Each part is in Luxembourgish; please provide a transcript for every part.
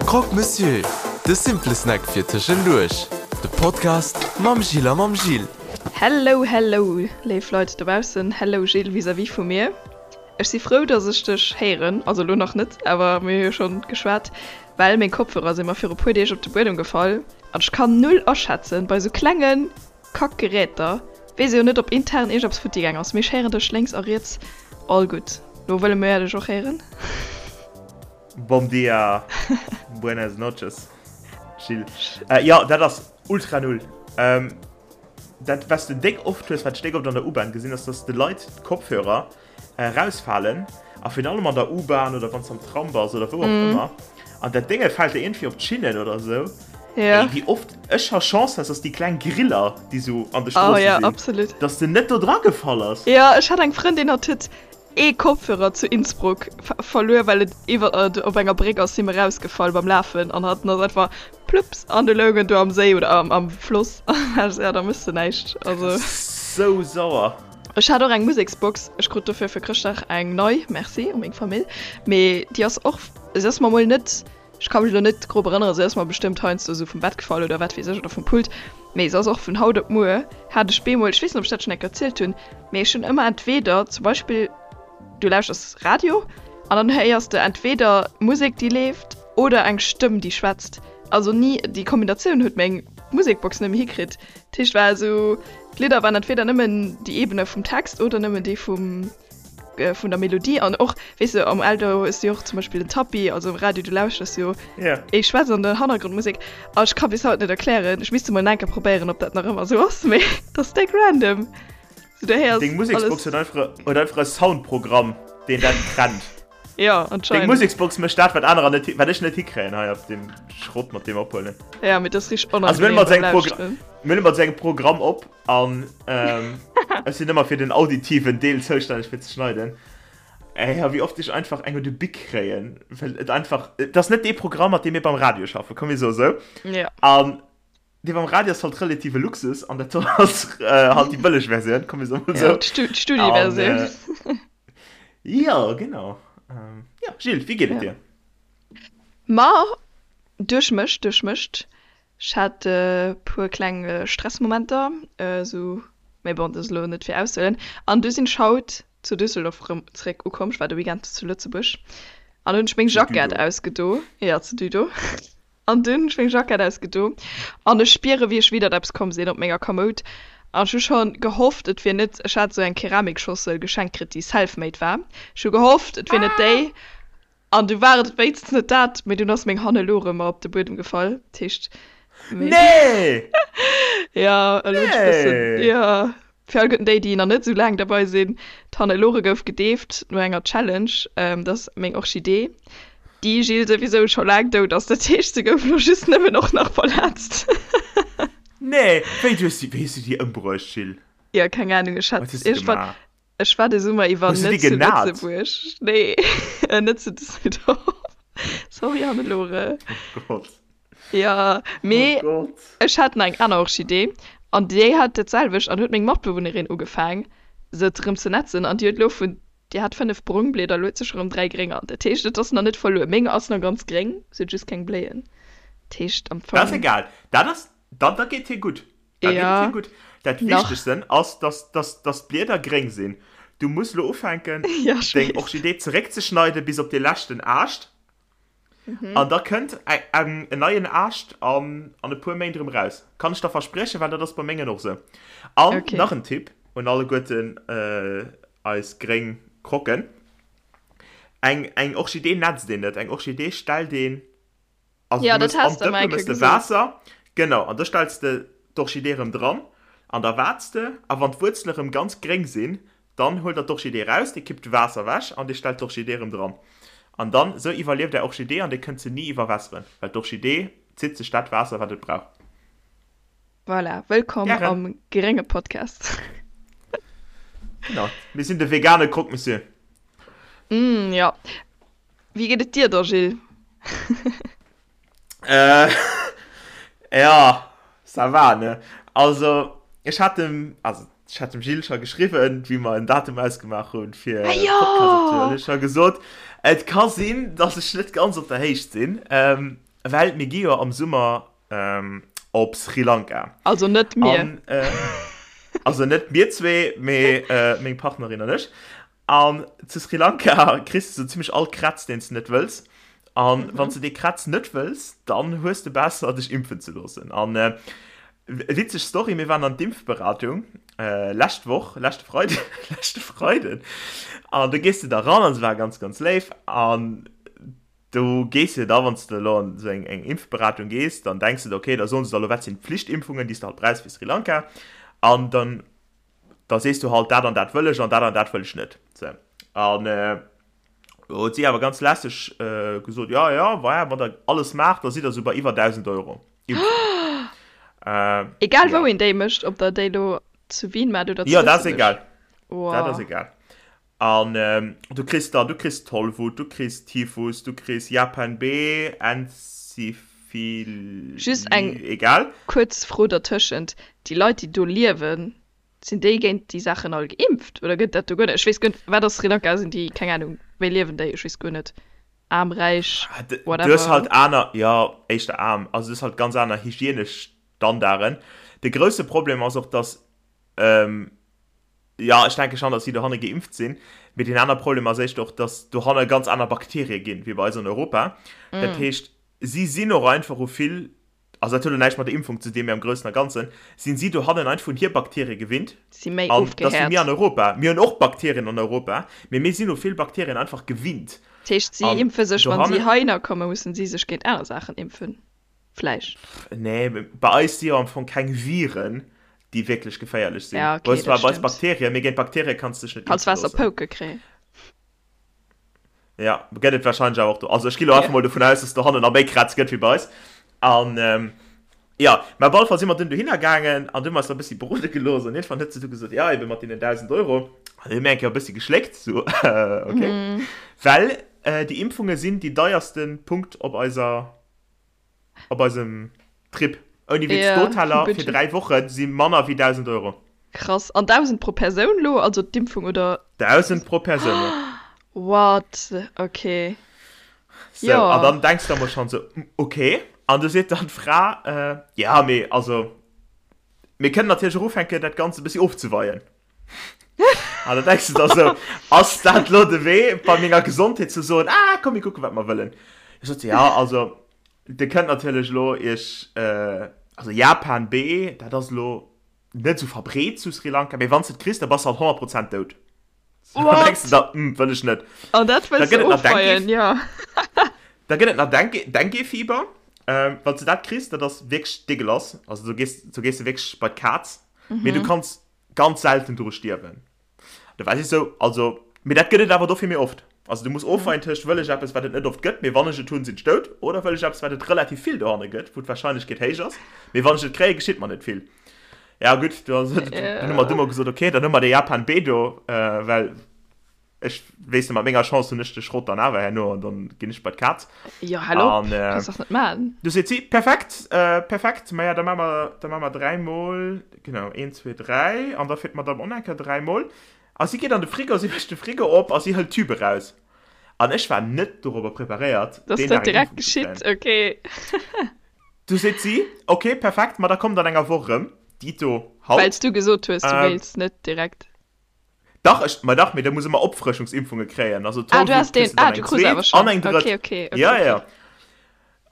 Croque Monsieur, de simple Snack fir tëschenduerch. De Podcast mam Jill a mam Gilles. Hello hello léif Leit dobaussen, hello Gilles vis-à-vis vu mir. Ech si frou dass ech dech héieren, also elo nach net, awer mir hu jo schonn geschwat, well meng Kopfhörer si mer viru puer Deeg op de Buedem gefall an ech kann null aschätzen bei sou klengen Kack Geräter, weess jo net op intern iergendeppes futti gaang ass, mee ech héieren dech lénks a riets all gutt. Lo wëlle mir dech och héieren. Bom dia, buenas noches Gilles. Jo dat ass ultra null. Dat wat s de déck oft hues, wat ech déck oft an der U-Bahn gesinn ass, dass de Leit d'Kopfhörer erausfalen a virun allem an der U-Bahn oder wann s am Tram bass oder wou och ëmmer an dat Dénge fält der iergendwéi op d'Schinnen oder esou. Ja. Ey, wéi oft ech scho Chance hat, dass déi kleng Griller, déi sou an de Stroosse oh, ja, sinn, absolut. dass de net do dra gefall ass. Ja, ech hat eng Frëndin, hatt huet ee Kopfhörer zu Innsbruck verluer, well et iwwer op enger Bréck ass him erausgefall beim Lafen an hatt ass einfach plups an du loung en do am Séi oder am, am Floss. Ja, da mëss de näischt. Also. Sou sauer. Ech hat och eng Museksbox, ech krut dofir fir Chrëschtdag eng nei, merci u meng Famill, mee déi ass och, se ass mer mol net, ech ka mech elo net grob erënneren, se ass mer bestëmmt heiansdo esou vum Bett gefall oder wat weess ech oder vum Pult, mee se ass och vun haut op muer hat ech bemol, ech weess net ob ech dat schonn eng Kéier erzielt hunn, mee ech hunn ëmmer entweder zum Beispill du lauschters Radio an dann héiers de entweder Musek déi leeft oder eng Stëmm déi schwätzt, also ni déi Kombinatioun huet meng Musekbox net méi hikritt, dat heescht war esou. D'Lidder waren entweder nëmmen déi Ebene vum Text oder nëmmen déi vum vun der Melodie an och weess de am Auto hues de jo och zum Beispill den Tapis, also am Radio du lauschters jo Ja. ee schwätzt an der Hannergrondmusek a ech ka bis haut net erklären, ech misst emol enke probéieren ob dat nach ëmmer esou ass, mee dat ass déck random. Sou du héiers Deng Museksbox alles. huet einfach huet einfach e Soundprogramm deen dat trennt. Ja, Deng anscheinend. Museksbox mécht dat wat anerer net wat ech net hikréien hei op deem Schrott mat deem ophuelen. Ja, mee dat ass richteg Also mir onangenehm hunn mat beim sengem Progr Lauschteren. mir hunn mat sengem Programm op an ähm, ech sinn ëmmer fir den auditiven Deel zoustänneg fir ze schneiden. Ey, ja, wéi oft ech einfach eng un de Bic kréien, well et einfach et ass net dee Programm mat deem mir beim Radio schaffen, komm mir soe sou. Ja. An dee beim Radio ass halt relative Luxus an dat do ass äh, halt déi bëlleg Versioun, komm mir soe mol Ja, sou. d'Stu An d'Studieversioun. äh, ja, genau. Ähm, ja, Gilles, wéi geet et Ja. dir? Ma duerchmëscht, duerchmëscht. Ech hat e puer kleng Stressmomenter, esou, mee bon, dat ass elo net fir auszehuelen. An du sinn ech haut zu Düsseldorf erëm zeréck ukomm. Ech war de Weekend zu Lëtzebuerg an hunn ech meng Zu Jackett Düdo. ausgedo. Jo, zu Düdo. An dunn hunn ech meng Jackett ausgedo an ech spiere wéi ech widdert eppes komm sinn op menger Kamoud. An ech hu scho gehofft, et wier net, ech hat esou eng Keramiksschossel geschenkt kritt, déi self-made war. Ech hu gehofft, et wier net déi. An du war et wéinstens net dat, mee dunn ass meng Hannelore mer op de Buedem gefall. Dat heescht, méi. Nee! Ja, elo hunn ech e bëssen, Nee! jo. Fir alleguerten déi, déi nach net esou laang derbei sinn, D'Hannelore gouf gedeeft no enger Challenge. Dat ass meng Orchidee, déi, Gilles, souwisou scho laang dout ass. Dat heescht, se gouf elo just nëmmen och nach verletzt. Nee! Wéi, du hues déi, wéi hues du déi ëmbruecht, Gilles? Jo, keng Anung, ech hat Wat hues du iergendwann. gemaach? Ech war de Summer iwwer Hues du déi net zu genat? Lëtzebuerg. Nee, net zu Düsseldorf. Sorry, Hannelore. Oh Gott. Ja, Oh mee Gott. ech hat nach eng aner Orchidee an déi hat dat selwecht an huet meng Matbewunnerin ugefaang se erëm ze netzen an déi huet elo vun, déi hat 5 brong Blieder, elo huet se scho rëm 3 grénger. Dat heescht, et ass nach net verluer. Meng ass nach ganz gréng, se huet just keng Bléien. Dat heescht am Dat ass Fong. egal. Dat ass, dann, da geet hir gutt. Da geet et Ja, hir gutt. Dat nach. Wichtegsten ass, dass, dass, dass d'Blieder gréng sinn. Du muss lo ufänken, Ja, ech deng weess. Orchidee zeréckzeschneiden bis op de leschten Aascht. An da kënnt en neien Aascht an, an e puer Méint erëm raus. Kann ech der verspriechen, well dat ass bei mengen och sou. An Okay. nach en Tipp un alleguerten eis gréng Croquen, Eng, eng Orchidee netzt een net, eng Orchidee stellt een Also Ja, du dat mëss has an de d'Dëppe mer eng mëss Kéier de gesot. Waasser, genau, an da stells de d'Orchidee erëm dran an da waarts de a wann d'Wuerzele erëm ganz gréng sinn, dann huelt der d'Orchidee raus, dir kippt d'Waasser ewech an dir stellt d'Orchidee erëm dran. An dann, esou iwwerlieft är Orchidee an dir kënnt se ni iwwerwässeren, well d'Orchidee zitt sech dat Waasser wat et brauch. Voilà, wëllkomm Gären. am grénge Podcast. Genau, mir sinn de vegane Croque Monsieur. Mm, jo. Wéi geet et dir da, Gilles? Äh, ja, ça va, ne? Also, ech hat dem, also, ech hat dem Gilles scho geschriwwen, wéi mer en Datum ausgemaach hunn, fir Ah, de Podcast opzehuelen. jo! Ech ha gesot, et ka sinn, dass ech net ganz op der Héicht sinn. Ähm. Well mir gi jo am Summer op Sri Lanka. Also net mir. An, also net mir zwee, mee meng Partnerin an ech. An zu Sri Lanka kriss de sou zimmlech all Krätz, deen s de net wëlls. An wann s de dee Krätz net wëlls, dann hues de besser, dech impfen ze loossen. An witzeg Story, mir waren an d'Impfberatung lescht Woch, leschte Freiden, leschte Freiden. An do gees de da ran an se war ganz, ganz léif. An do gees de da, wann s de elo an esou eng eng Impfberatung gees, dann denks de der, okay, da soen se der elo, wat sinn d'Pflichtimpfungen, déi s de halt brauchs fir Sri Lanka. An dann da sees du halt, dat an dat wëll ech an dat an dat wëll ech net. Sou. An huet si awer ganz lässeg gesot, jo, jo, voilà, wann der alles maacht, da sidd der sou bei iwwer 1.000 Euro Impfung. Egal wou een déi mécht, ob der déi elo zu Wien maacht oder zu Jo, dat ass egal. Dat ass egal. An du kriss dann, du kriss Tollwut, du kriss Typhus, du kriss Japan B, Enzephilie, Just eng egal. kuerz Fro dertëschent, Déi Leit, déi do liewen, sinn déi géint déi Saachen all geimpft oder gëtt dat do guer net? Ech weess guer net, wat ass Sri Lanka? Sinn déi, keng Anung, wéi liewen déi? Ech weess guer net. Aarm, räich, Du hues halt whatever. aner, jo, éischter aarm, also du hues halt ganz aner hygienesch Standarden. De grousse Problem ass och, dass Jo, ech denke schon, dass si dohanne geimpft sinn. Mee deen aner Problem ass éischter och, dass dohanne ganz aner Bakterie ginn, wéi bei eis an Europa. Dat heescht, si sinn och einfach u vill, also dat huet elo näischt mat der Impfung ze dinn, mee am Groussen a Ganzen sinn si dohannen einfach un hir Bakterie gewinnt. Si méi An dass wéi mir ofgehäert. an Europa. Mir hunn och Bakterien an Europa, mee mir sinn u vill Bakterien einfach gewinnt. Dat heescht, si An impfe sech, wann si dohannen. heihinner kommen, mussen si sech géint aner Saachen impfen. Vläicht. Nee, bei eis si jo am Fong keng Viren, déi wierklech geféierlech sinn. Ja, okay, dat stimmt. Bei eis Bakterien, mee géint Bakterie kanns du dech net impfe loossen. Kanns Waasserpouke kréien. Ja, gëtt et warscheinlech awer och do. Also ech gi lo einfach mol dovun aus, dass dohannen nach méi Krätz gëtt wéi bei eis. An jo, mä op alle Fall si mer dunn dohinner gaangen an du hu mer eis da e bëssi berode gelooss an iergendwann huet se du gesot, jo, ebe mat deenen 1.000 Euro. An du hu mir eng Kéier e bëssi geschléckt, sou, okay. Well déi Impfunge sinn déi deierste Punkt op eiser Op eisem Trip. Ouni Witz, Ja, d'Hoteller fir Budget. 3 Woche si manner wéi 1.000 Euro. Krass. An 1.000 pro Persoun lo? Also d'Impfung oder? 1.000 pro Persoun, jo. What? Okay. Sou, an Jo. dann denks de emol schonn sou, okay. An du seet dann d'Fra, ja, mee also, mir kënnen natierlech och ufänken, dat Ganzt e bëssi ofzeweien. An da denks de der sou, ass dat lo de Wee, bei menger Gesondheet ze soen, ah, komm, mir kucken, wat mer wëllen. Ech sot, ja, also, Dir kënnt natierlech elo iech, also Japan B, dat ass elo net esou verbreet zu Sri Lanka, mee wann s de et kriss, da bass de halt 100 Prozent dout. Da denks de der, hm, wëll ech net. An dat Da wëlls gëtt de et nach Dengue, ofweien, jo. da gëtt et nach Dengue, Dengue-Fieber. Wann s de dat kriss, dat ass wierklech degueulass, also do gees, do gees de wierklech bei d'Kaz, mee du kanns ganz selten doru stierwen. Da war si sou, also, mee dat gëtt et awer dofir méi oft. Also du muss ofweien tëscht, wëll ech eppes, wat et net oft gëtt, mee wann ech et hunn, sinn ech dout, oder wëll ech eppes, wat et relativ vill dohanne gëtt, wou d'Warscheinlechkeet héich ass, mee wann ech et kréien, geschitt mer net vill. Ja gutt, du dunn hu mer du mol gesot, okay, dann hu mer de Japan B do, well ech weess net, mat menger Chance hunn ech de Schrott dann awer herno an dann ginn ech bei d'Kaz. Jo, hal op, kanns dach net maachen. Du seet si, perfekt, perfekt, maja da maache mer, da maache mer dräimol, genau, een, zwee, dräi, an da fir d'Madame och nach eng Kéier dräimol. A si geet an de Frigo, si mécht de Frigo op a si hëlt d'Tüb eraus. An ech war net dorobber preparéiert, Dass deen dat Dag eng direkt Impfung ze geschitt, kréien. okay. Du seet si, ok, perfekt, ma da kommt an enger Woch erëm, dito Well haut. s du gesot hues, du wéilts net direkt. Dach, ech, ma dach, mee da muss ëmmer Opfrëschungsimpfunge kréien. Also Ah, du Tollwut has kriss den, du dann ah, du eng krus awer zweet schonn. an eng drëtt. Okay, okay, okay, Ja, okay. ja.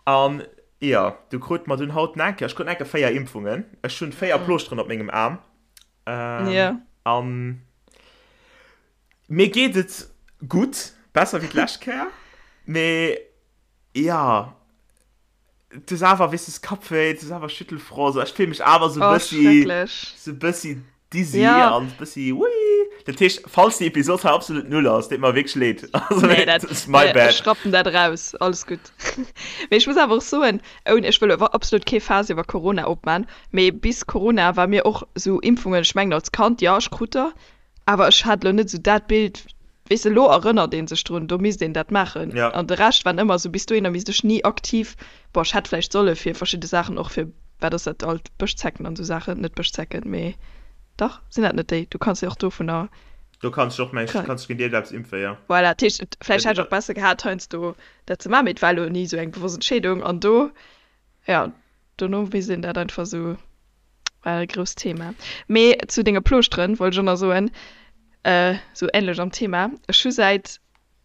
An ja, du krut mer dunn haut nach eng Kéier, ech krut nach eng Kéier 4 Impfungen. Ech hunn 4 Plooschteren op mengem Aarm. Ähm, Ja. An mir geet et gutt, besser wéi d'lescht Kéier. Mee ja, Du hues awer, weess du, Kappwéi, du hues awer Schüttelfrost, ech fill mech awer sou Oh, bëssi, schrecklech. sou bëssi dizzy Ja. an bëssi ui. Dat heescht, falls déi Episod hei absolut null ass, deet mer wierklech leed. Also, Nee, dat, dat ass my ech bad. rappen dat eraus, alles gutt. Mee ech muss awer och soen, ouni, ech wëll awer absolut kee Faass iwwer Corona opman, mee bis Corona war mir och sou Impfungen, ech mengen als Kand, jo, ech krut der, Awer ech hat elo net esou dat Bild, weess de, elo erënnert ee sech drun, do misst een dat maachen. Ja. An de Rescht waren ëmmer esou, bis dohinner misst ech ni aktiv, bon, ech hätt vläicht solle fir verschidde Saachen, och fir, wat ass dat alt, Bëschzecken an esou Saachen, net Bëschzecken, mee dach, sinn dat net déi, du kanns jo och dovunner. Do kanns de och meng kanns de géint iergendeppes impfen, jo. Voilà, dat heescht, et vläicht hätt ech och besser gehat heiansdo dat ze maachen, mee et war elo ni esou eng bewosst Entscheedung an do, jo, dono weess een dat einfach esou, war e grousst Thema. Mee zu denge Plooschteren wollt ech och nach soen, esou änlech am Thema, ech hu säit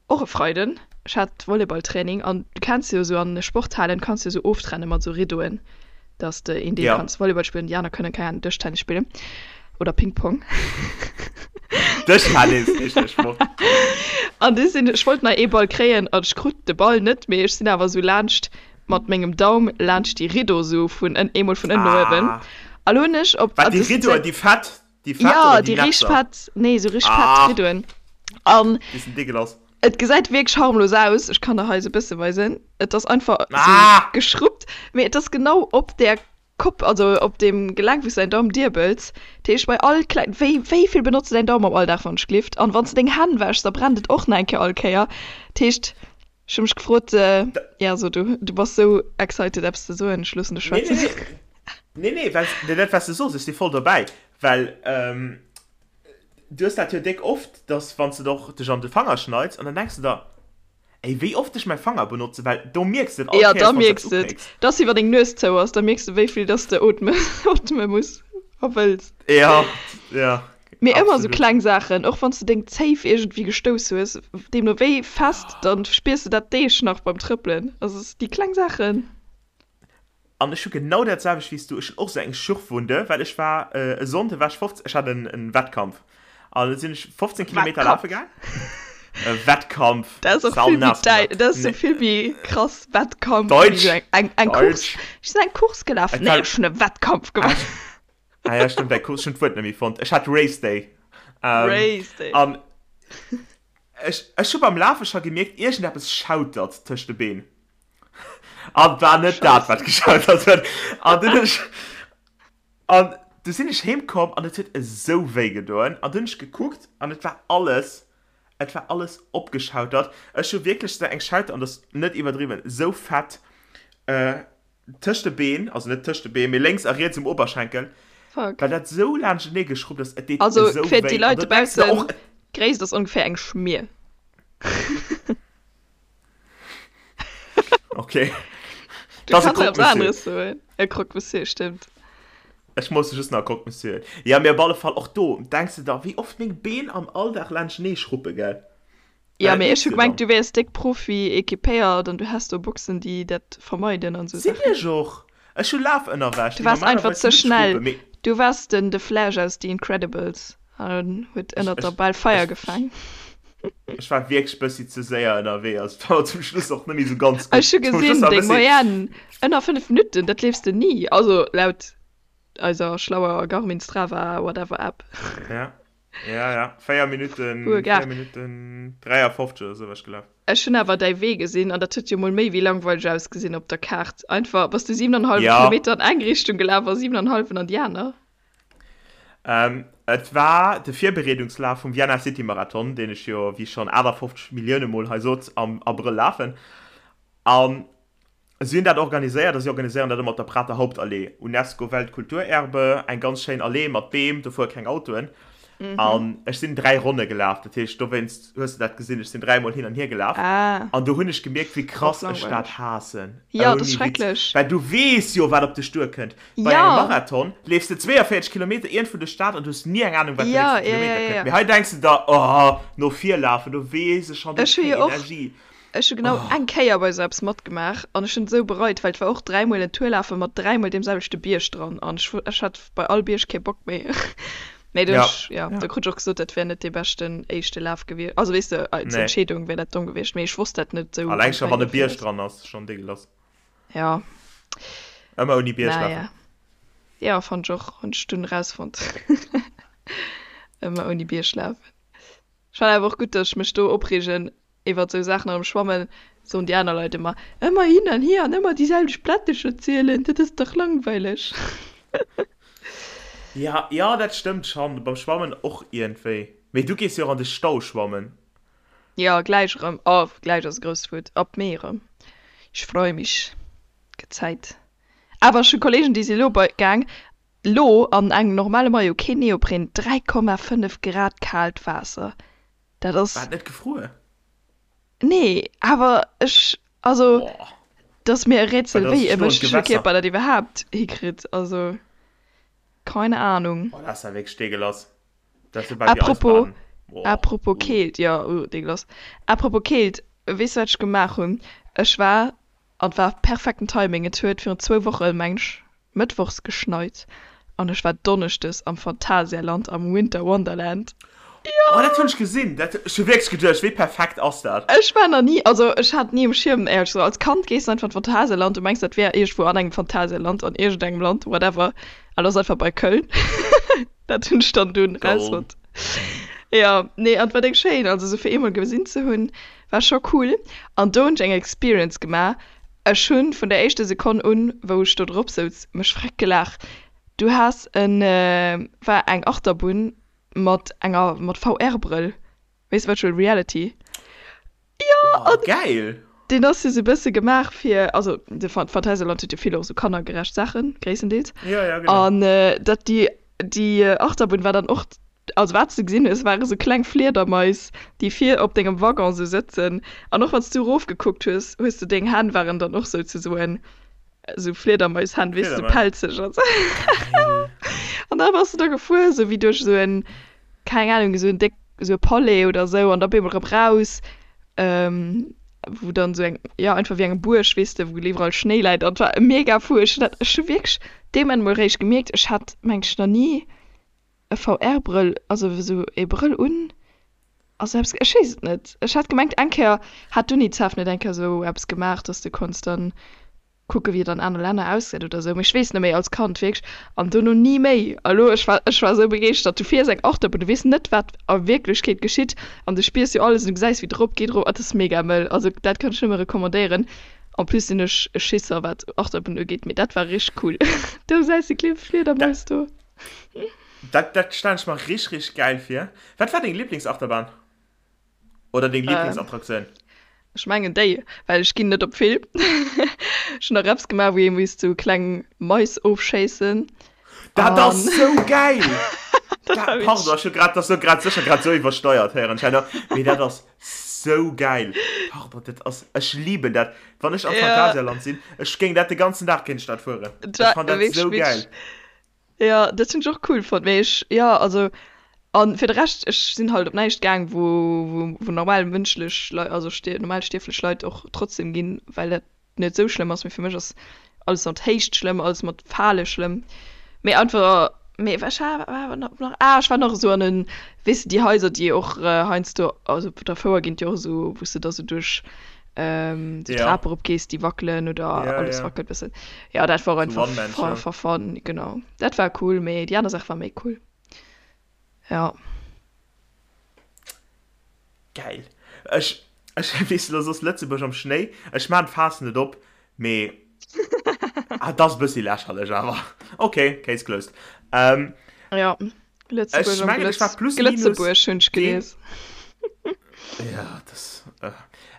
Och e Freiden, ech hat Volleyballtraining an du kenns jo esou an Sporthalen kanns du esou oftrennen mat esou Riddoen, dass de een Deel Ja. kanns Volleyball spillen, déi aner kënnen keng Ahnung Dëschtennis spillen oder Ping Pong. Dëschtennis heescht dee Sport. An du sinn, ech wollt nach ee Ball kréien an ech krut de Ball net, mee ech sinn awer esou laanscht mat mengem Daum laanscht déi Riddo esou vun ënn, eemol vun ënnen no uewen. Ah. A lo hunn ech op, Wat also déi et sinn Riddoen, déi fett, Déi fett Ja, oder déi déi richteg Netzer? fett, nee, sou richteg fett Ah! Riddoen. An Déi sinn deegelass. et gesäit wierklech harmlos aus. Ech kann der hei sou e bësse weisen. Et ass einfach sou Ah! geschruppt, mee et ass genau op där Kopp, also op deem Gelenk, wou s de däin Daum diebels. Dat heescht, bei all kleng, wéi, wéi vill benotz de däin Daum am Alldag, wann ech glift? An wann s de deng Hänn wäschs, da brennt et och nach eng Kéier all Kéier. Dat heescht, ech hu mech gefrot, ja, so du, du bass sou excited eppes ze soen, ech loossen dech Nee, schwätzen. nee, nee. Nee, nee, well nee, dat wat s de sos, ech si voll dobäi, well du hues dat jo déck oft, dass wann s de och dech an de Fanger schneits an dann denks de der, ey, wéi oft ech mäi Fanger benotze, well do mierks de et all Ja, Kéiers, da wann s de mierks eppes de et. upécks. Dat ass wéi wann deng Nues zou ass, da mierks de wéi vill dass de ootme ootme muss a wëlls. Ja, ja, Mee ëmmer esou absolut. kleng Saachen, och wann s de deng Zéif iergendwéi gestouss hues, deemno wéi fest, dann spiers de dat Deeg nach beim Trëppelen. Also déi kleng Saachen. An ech hu genau dat selwecht wéi s du. Ech hunn och esou eng Schürfwunde, well ech war e Sonnde war ech 15, ech hat en en Wettkampf an da sinn ech 15 Kilometer lafe Wettkampf. gaang. E Wettkampf, Dat ass och vill méi saunaass däi, gemaach. dat ass sou Nee. vill méi krass, Wettkampf, wéi Deutsch, sou eng, eng, eng Course. Deutsch. Ech sinn eng Course gelaf. Et Nee, war, ech hunn e Wettkampf ah, gemaach. ah ja, stimmt, eng Course, ech hunn d'Wuert net méi fonnt. Ech hat Race Day. Ähm, Race Day. an ech, ech hu beim Lafe scho gemierkt, iergendeppes schautert tëscht de Been. An war net dat, wat geschautert huet. An dunn hunn ech, an du sinn ech heem komm an et huet esou wéi gedoen. An dunn hunn ech gekuckt an et war alles, et war alles opgeschautert. Ech hu wierklech esou eng Schauter, an dat ass net iwwerdriwwen, esou fett tëscht de Been, also net tëscht de Been, mee lénks a riets um Oberschenkel, Fuck. well dat esou laanschtenee geschrubbt ass. Et deet Also esou fir déi wéi. An Leit do denks de dobaussen, och, d'Gréisst ass ongeféier eng Schmier. Okay. Du Das ist kannst ein etwas Croque-Monsieur. anderes soen. E Croque-Monsieur, stimmt. Ech muss just nach Croque-Monsieur. Ja, mee op alle Fall och do denks de der, wéi oft meng Been am Alldag laanschtenee schruppe, gell? Ja, Well dat mee ech mierks hu de gemengt, dann. du wäers déck Profi equipéiert an du häss do Boxen, déi dat vermeiden an sou Sinn Saachen. ech och. Ech hu Lafënnerwäsch, Du déi waars einfach normalerweis ze net schnell. schruppen, mee. Du waars den The Flash aus The Incredibles an huet Ech, ënnert der ech, Bal Feier ech, gefaang. ech war wierklech bëssi ze séier ënnerwee, also et war zum Schluss och net méi sou ganz gutt. Ech hu Zum Schluss gesinn, war e deng bëssi. Moyenne ënner 5 Minutten, dat leefs de ni, also laut eiser schlauer Garmin Strava whatever App. Ja, ja, ja, 4 Minutten, Puer 4 Gar. Minutten 53 oder sou war ech gelaf. Ech hunn awer däi Wee gesinn an dat huet jo mol méi wéi langweileg ausgesinn op der Kaart. Einfach bass du 7,5 Ja. Kilometer an eng Richtung gelaf a 7,5 an déi aner. Ähm, et war de Virbereedungslaf vum Vienna City Marathon, deen ech jo, wéi schonn 58 Millioune Mol hei sot, am Abrëll lafen. An si hunn dat organiséiert a si organiséieren dat ëmmer op der Prater Hauptallee, UNESCO Weltkulturerbe, eng ganz schéin Allee mat Beem, do fuere keng Autoen. An ech sinn 3 Ronne gelaf, dat heescht, dowéinst hues de dat gesinn, ech sinn 3 Mol hin an hier gelaf. Ah. An do hunn ech gemierkt, wéi Och krass ech dat langweileg. haassen. Jo, dat ass Ouni Witz. schrecklech. Well du weess jo, wat op dech duerkënnt. Bei engem Ja. Marathon leefs de 42 Kilometer iergendwou duerch d'Stad an du hues ni eng Anung, wat den Ja, nächste ja, Kilometer ja, kënnt. ja. Mee hei denks de der, oh, no vir lafen, do weess ech schonn, do Ech hu keng jo och, Energie. ech hu genau eng Kéier bei esou eppes matgemaach an ech hunn et esou bereit, well et war och dräimol en Tour lafe mat dräimol deem selwechte Bierg dran an ech, ech hat bei all Bierg kee Bock méi. Mee do Ja, ech, ja, ja. do krut ech och gesot, dat wär net dee beschten éischte Laf gewiescht. Also weess de, als Nee. Entscheedung wär dat domm gewiescht, mee ech wosst dat net esou Alleng am scho wann Fäin e Bierg viraus. dran ass, schonn deegelass. Ja. Ëmmer ouni Bierg lafen. Naja. Ja, fand ech och. Hunn ech dunn erausfonnt. Ëmmer ouni Bierg lafen. Ech fannen awer och gutt, dass ech mech do opreegen iwwert sou Saachen. An am Schwammen soen déi aner Leit ëmmer, ëmmer hin an hier an ëmmer déi selwecht Plättecher zielen, dat ass dach langweileg. Ja, ja, dat stëmmt schonn. Beim Schwammen och iergendwéi. Mee du gees jo och an de Stau schwammen. Ja, gläich erëm. Oh, gläich ass e grousst Wuert. Ab Mee erëm. Ich freue mich. Gëtt Zäit. Awer ech hu Kollegen, déi si elo bei gaang. Lo an engem normale Maillot, keen Neopren, 3,5 Grad kaalt Waasser. Dat ass. War et net gefruer? Nee, awer ech, also dat ass mir e Rätsel, wéi e mënschleche Kierper dat iwwerhaapt hikritt. Also keine Ahnung. Boah, dat ass ja wierklech deegelass. Dat ass jo bal wéi Apropos, Eisbaden. Boah. Apropos Keelt, jo, uh, deegelass. Apropos Keelt, weess du wat ech gemaach hunn? Ech war, an et war perfekten Timing, et huet virun zwou Woche meng ech Mëttwochs geschneit an ech war Donneschdes am Phantasialand am Winter Wonderland. Jo! Oh, dat hunn ech gesinn. Dat, ech hu wierklech geduecht, wéi perfekt ass dat? Ech war nach ni, also ech hat ni um Schierm, éierlech gesot. Als Kand gees du einfach an d'Phantasialand, du mengs dat wär iergendwou an engem Phantasialand, an iergendengem Land, whatever, an ass einfach bei Köln. Dat hunn ech dann dunn rausfonnt. Jo, nee, an et war déck schéin, also sou fir eemol gesinn ze hunn, war scho cool. An do hunn ech eng Experience gemaach, ech hunn vun der éischter Sekonn un, wou ech do drop souz, mech freck gelaach. Du has en, war eng Achterbunn mat enger, mat VR-Brëll, weess Virtual Reality. Jo, oh, an geil! Deen ass jo sou bësse gemaach fir, also de Phantasialand huet jo vill och sou kannergerecht Saachen, gréisstendeels. Ja, ja, genau. An dat déi, déi Achterbunn war dann och, also wat s de gesinn hues, ware sou kleng Fliedermais, déi vir op dengem Waggon sou sëtzen. An och wann s du erofgekuckt hues, hues de deng Hänn waren dann och souzesoen sou Fliedermaishänn, weess de, sou pelzeg an sou. Geil! An da bass de da gefuer, sou wéi duerch sou en keng Ahnung, esou en déck, esou e Palais oder esou an da op eemol erëm raus, wou dann esou eng, jo einfach wéi eng Buerg, weess de, wou iwwerall Schnéi läit an et war mega fou. Ech hunn dat, ech hu wierklech dee Moment emol eréischt gemierkt, ech hat meng ech nach ni e VR-Brëll, also esou ee Brëll un, also eppes, ech weess et net. Ech hat gemengt eng Kéier hat d'Unicef net eng Kéier esou eppes gemaach, dass de konns dann kucke wéi et an aner Länner ausgesäit oder sou, mee ech weess net méi, als Kand wierklech, an dono ni méi. A lo, ech war, ech war sou begeeschtert, du fiers eng Achterbunn, du weess net wat a Wierklechkeet geschitt an du spiers jo alles an du gesäis wéi et erop geet, erof, et ass mega mëll, also dat kann ech nëmme recommandéieren. En plus sinn ech e Schisser wat Achterbunn ugeet, mee dat war richteg cool. Do gesäis de kleng Fliedermaus do. Dat, dat stellen ech mer richteg, richteg gäil vir. Wat war deng Liblingsachterbahn? Oder deng Lieblingsattraktioun? Ech mengen déi, well ech ginn net op vill. Ech hunn nach eppes gemaach, wou ee misst sou kleng Mais ofschéissen. Dat ass sou gäil! Dat, pardon, ech hu grad, dat ass sou grad sécher grad sou iwwersteiert héieren ech herno, mee dat ass sou gäil. Pardon, dat ass, ech liben dat. Wann ech am Phantasialand sinn, ech géing dat de ganzen Dag kéint ech dat fueren. Ech fann dat sou gäil. Jo, dat hunn ech och cool fonnt, mee ech, jo, also, an fir de Rescht, ech sinn halt op näischt gaang, wou, wou, wou normal mënschlech Leit, also stier, normal stierflech Leit och trotzdem ginn, well dat net esou schlëmm ass, mee fir mech ass alles mat Héicht schlëmm, alles mat Fale schlëmm, mee einfach, mee ech war awer nach, ah, ech war nach esou an en, weess de, déi Haiser, déi och heiansdo, also op der Fouer ginn et jo och esou, wou s de da sou duerch ähm, die ja. Trape erop gees, déi wackelen oder ja, alles ja. wackelt bëssen. Ja, dat war einfach for, for fun, genau. Dat war cool, mee déi aner Saach war méi cool. Ja. Geil. Ech, ech weess lo soss Lëtzebuerg am Schnéi. Ech maan d'Faass net op, mee ah, dat ass e bëssi lächerlech awer. Okay, case closed. Ähm, ja. Lëtzebuerg am Glëtz, Glëtzebuerg hunn ech gelies. Ja, das, äh,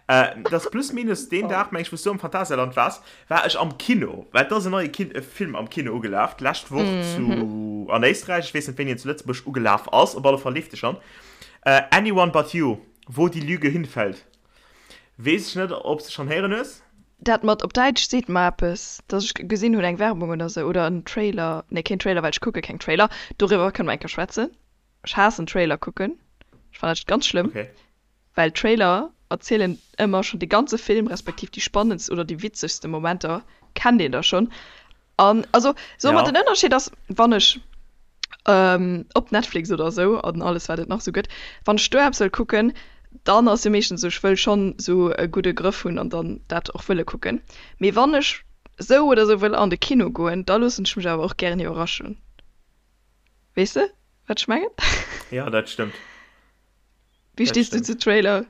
äh, das plus minus den Dag, meng ech, wou s du am Phantasialand waars, war ech am Kino. Well et ass en neie Kin e Film am Kino ugelaf, d'lescht Woch zu, an Éisträich. Ech weess net, wéini en zu Lëtzebuerg ugelaf ass. Op alle Fall leeft e schonn. Äh, Anyone But You, Wo die Lüge hinfällt. Weess ech net, ob s de schonn héieren hues. Dat mat op Däitsch seet mer eppes, dass ech gesinn hunn eng Werbung oder sou oder en Trailer, nee keen Trailer, well ech kucke keng Trailer, doriwwer kënne mer eng Kéier schwätzen. Ech haassen Trailer kucken, ech fannen dat ganz schlëmm, Okay. well Trailer erzielen ëmmer schonn de ganze Film, respektiv déi spannendst oder déi witzegste Momenter kennt een da schonn. An also soe mer, Ja. den Ënnerscheed ass, wann ech op Netflix oder esou an alles wat et nach esou gëtt, wann ech do eppes wëll kucken, dann ass jo meeschtens esou, ech wëll schonn esou e gudde Grëff hunn an dann dat och wëlle kucken. Mee wann ech esou oder esou wëll an de Kino goen, da loossen ech mech awer och gären iwwerraschen. Weess de wat ech mengen? Ja, dat stëmmt. Wéi stees du zu Trailer?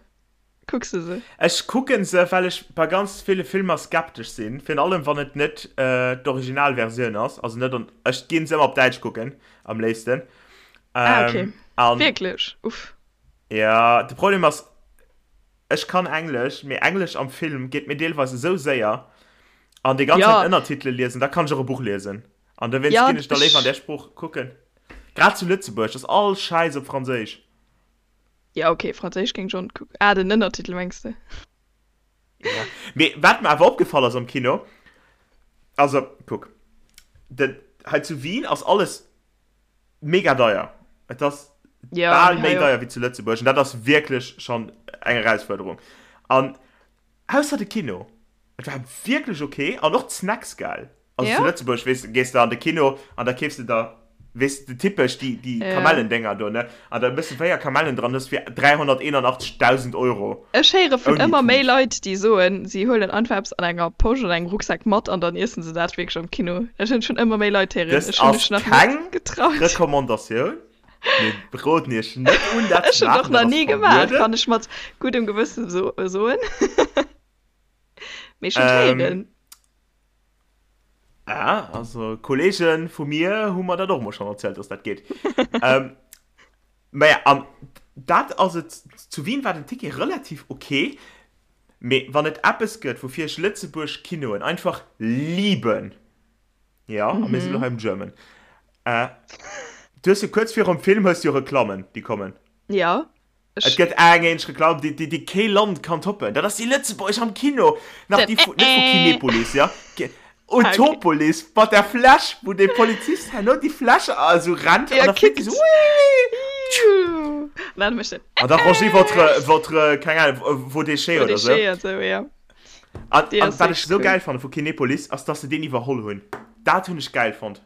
Kucks de se? Ech kucken se, well ech bei ganz ville Filmer skeptesch sinn, virun allem wann et net d'Originalversioun ass, also net an, ech ginn se ëmmer op Däitsch kucken am léifsten. Ah okay, An wierklech? Uff. Ja, de Problem ass, ech kann Englesch, mee Englesch am Film geet mir deelweis esou séier an déi ganz Ja. Zäit Ënnertitele liesen, da kann ech och e Buch liesen. An dowéinst Ja, ginn ech da léiwer an ech. där Sprooch kucken. Grad zu Lëtzebuerg ass all Schäiss op Franséisch. Ja, okay, Franséisch géing ech och net kucken. Ah, den Ënnertitel mengs de? Ja. Mee wat mer awer opgefall ass am Kino, also kuck, den, hei zu Wien ass alles mega deier. Et ass Ja, bal mee méi hei och. deier wéi zu Lëtzebuerg an dat ass wierklech schonn eng Erausfuerderung. An ausser de Kino, et war wierklech ok an och d'Snacks gell. Also Ja? zu Lëtzebuerg, weess de, gees de an de Kino an da keefs de der, weess de, typesch déi, déi Ja. Kamellendénger do, ne? An da mëss de 4 Kamellen dran, hues fir 381.000 Euro. Ech héiere vun Ouni ëmmer méi Tut. Leit, déi soen, si huelen einfach eppes an enger Posch oder engem Rucksak mat an dann iessen se dat wierklech am Kino. Dat hunn ech vun ëmmer méi Leit héieren. Dëst Ech hunn ass mech nach net keng getraut. Recommandatioun. Mir roden iech net un, dat Ech ze hunn et och maachen, dat nach ass ni gemaach, verbueden. kann ech mat guddem Gewësse soen. Mee ech hunn et Ähm, héieren. Ah, also Kollegen vu mir hu mer dat och mol schon erzielt, dass dat geet. ähm, naja, an dat ass et, zu Wien war den Ticket relativ okay, mee wann et eppes gëtt, woufir ech Lëtzebuerg Kinoen einfach liben, ja, a mir sinn elo hei um German, äh, du hues jo kuerz virum Film hues du jo Reklammen, déi kommen. Ja. Et gëtt eng eenzeg Reklamm, déi, déi, déi kee Land kann toppen. Dat ass déi Lëtzebuergesch am Kino. Nach déi vu, net vu Kinepolis, ja. Utopolis, mat der Fläsch, wou dee Polizist herno déi Fläsch esou rennt an da flitt déi esou, Wii! An da rangez votre, votre, keng Ahnung, vos déchets oder esou. Vos déchets, esou, ja. An, an wat ech esou gäil fanne vu Kinepolis, ass, dass se deen iwwerholl hunn. Dat hunn ech gäil fonnt.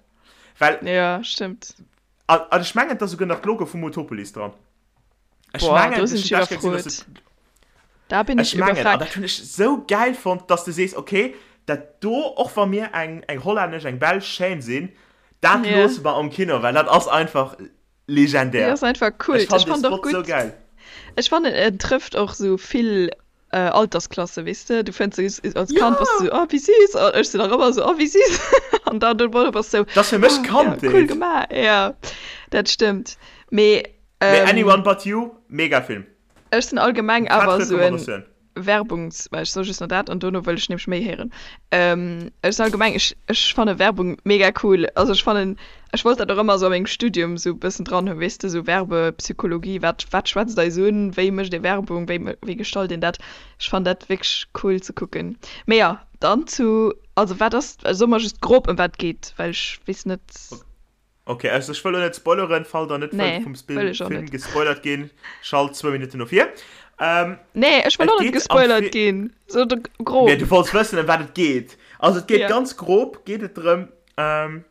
Well. Ja, stëmmt. An, an ech mengen, et ass esouguer nach d'Logo vum Utopolis dran. Ech Boah, mengen, do sinn ech ech hunn dat gesinn, dass iwwerfrot. et Da bin ech Ech mengen, an iwwerfragt. dat hunn ech sou gäil fonnt, dass de sees, okay, dat do, och wa mir eng, eng hollännesch, eng belsch Chaîne sinn, dat Ja. loosse mer am Kino, well dat ass einfach Déi legendär. ass einfach Ech Kult. fannen Ech dee fannen och Spot sou gutt, gäil. ech fannen en trëfft och sou vill Altersklasse, weess de. Du fënns se als Kand bass du Ja! sou, oh wéi süß, an ech sinn nach ëmmer sou, oh wéi süß, an dann do bass du sou, Dat ass fir mech oh ja, cool Kandheet. gemaach, ja, dat stëmmt. Mee Mee Anyone But You, mega Film. Ech sinn allgemeng Fett awer esou en Recommandatioun. Werbungs-, well ech soe just nach dat an dono wëll ech nämlech méi héieren. Ech sinn allgemeng, ech, ech fanne Werbung mega cool. Also ech fannen, ech wollt dat och ëmmer esou a mengem Studium esou e bëssen dran hunn, weess de, esou Werbepsychologie, wat, wat schwätzt eis un, wéi mécht ee Werbung, wéi, wéi gestalt een dat. Ech fannen dat wierklech cool ze kucken. Mee jo, dann zu, also wat ass, so mer just grob ëm wat et geet, well ech weess net. Ok, also ech wëll lo net spoileren, fall der net wëllt Nee, vum wëll ech och Film net. gespoilert ginn, schalt zwou Minutten no vir. Ähm, Nee, ech wëll et och net geet am gespoilert Fi ginn. So de Mee grob. du wollts wëssen ëm wat et geet. Also et geet Ja. ganz grob geet et drëm, ähm,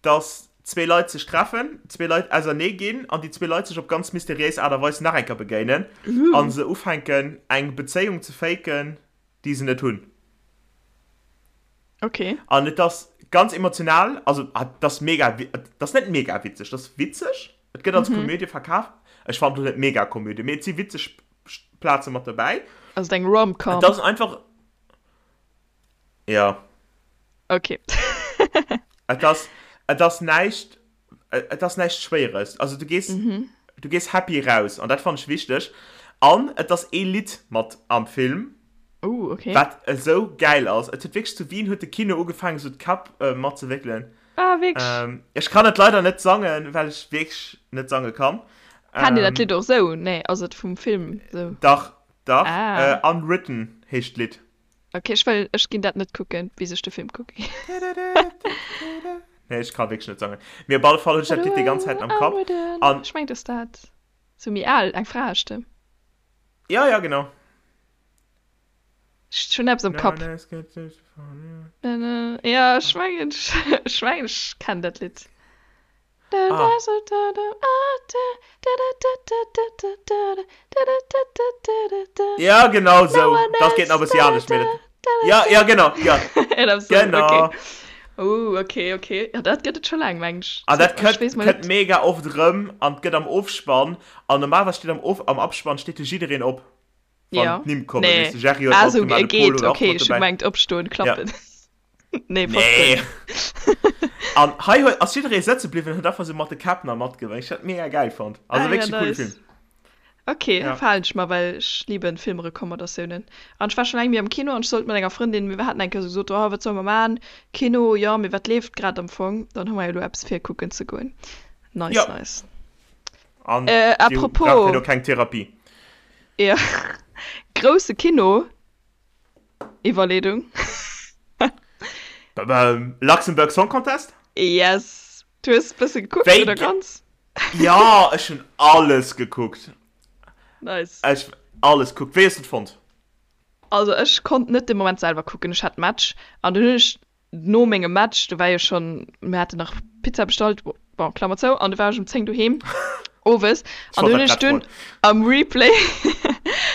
dass zwee Leit sech treffen, zwee Leit ausernee ginn an déi zwee Leit sech op ganz mysteriéis Aart a Weis nach eng Kéier begéinen Uh. a se ufänken eng Bezéiung ze faken, déi se net hunn. Okay. An et ass ganz emotional, also et ass mega, et ass net mega witzeg, et ass witzeg, et gëtt als mhm. Komödie verkaf. Ech fand net mega Komödie, mee et si witzeg Plaze mat dobäi. Also eng Rom-Com. Et ass einfach ja. Okay. et ass et ass näischt et ass näischt Schwéieres. Also du gees mhm. du gees happy raus an dat fand ech wichteg. An et ass ee Lidd mat am Film. Uh, okay. Wat esou gäil ass. Et huet wierklech zu Wien huet de Kino ugefaangen esou d'Käpp äh, mat ze wéckelen. Ah, wierklech? Ähm, ech kann et leider net sangen, well ech wierklech net sange kann. Kennt Dir dat Ähm, Lidd och sou? Nee, ass et vum Film sou? Dach, dach. Ah. Äh, Unwritten heescht d'Lidd. Ok, ech wëll, ech ginn dat net kucken, bis ech de Film kucken. Nee, ech ka wierklech net sangen. Mee op alle Fall hunn ech dat Lidd déi ganz Zäit am Kapp. An. Ech mengen, et ass dat. Sou méi al, eng Fraestëmm. Ja, ja, genau. Ech hunn eppes am Kapp. Ja, ech mengen, ech mengen, ech kennen dat Lidd. Ah. Ja, genau sou. Dat geet nach e bëssi anescht, mee dat. Ja, ja, genau, ja. Genau. Okay. Oh, okay, okay. Ja, dat gëtt et scho laang, meng ech. An dat Ech kënnt, weess mol kënnt net. mega oft erëm an 't gëtt am Ofspann. An normalerweis steet am Of, am Abspann steet jo jiddereen op. Wann Ja. d'Nimm kommen, Nee. weess de, Jerry huet Ah, och sou, gemaach, e de Pol geet, huet och okay, mat ech hu dobäi. gemengt opstoen, Ja. klappen. Nee, Nee. Popcorn. An hei huet, ass jidderee sëtze bliwwen, huet einfach sou mat de Käpp nach matgewénkt. Ech hat mega gäil fonnt. Also Ah, ja, wierklech e coole nice. Film. Ok, ja. Verhalen ech mer, well ech lieben Filmrecommandatiounen. An ech war schon laang méi am Kino an ech sollt mat enger Frëndin, mir haten eng Kéier sou gesot, oh wat solle mer man, Kino, jo, mee wat leeft grad am Fong? Dann hu mer jo elo eppes fir kucken ze goen. Nice, ja. nice. An äh, apropos, braucht jo keng Therapie. Ja. Grousse Kino, Iwwerleedung. Luxembourg Song Contest? Yes. Du hues bësse gekuckt, Wéi oder ganz? Ja, ech hunn alles gekuckt. Nice. Ech alles gekuckt. Wéi hues du et fonnt? Also ech konnt net de Moment selwer kucken, ech hat Match an dunn hunn ech no mengem Match, do war jo schonn, mir haten nach Pizza bestallt, bon, Klammer zou, an du war ech um 10 doheem owes an dunn hunn ech dunn am Replay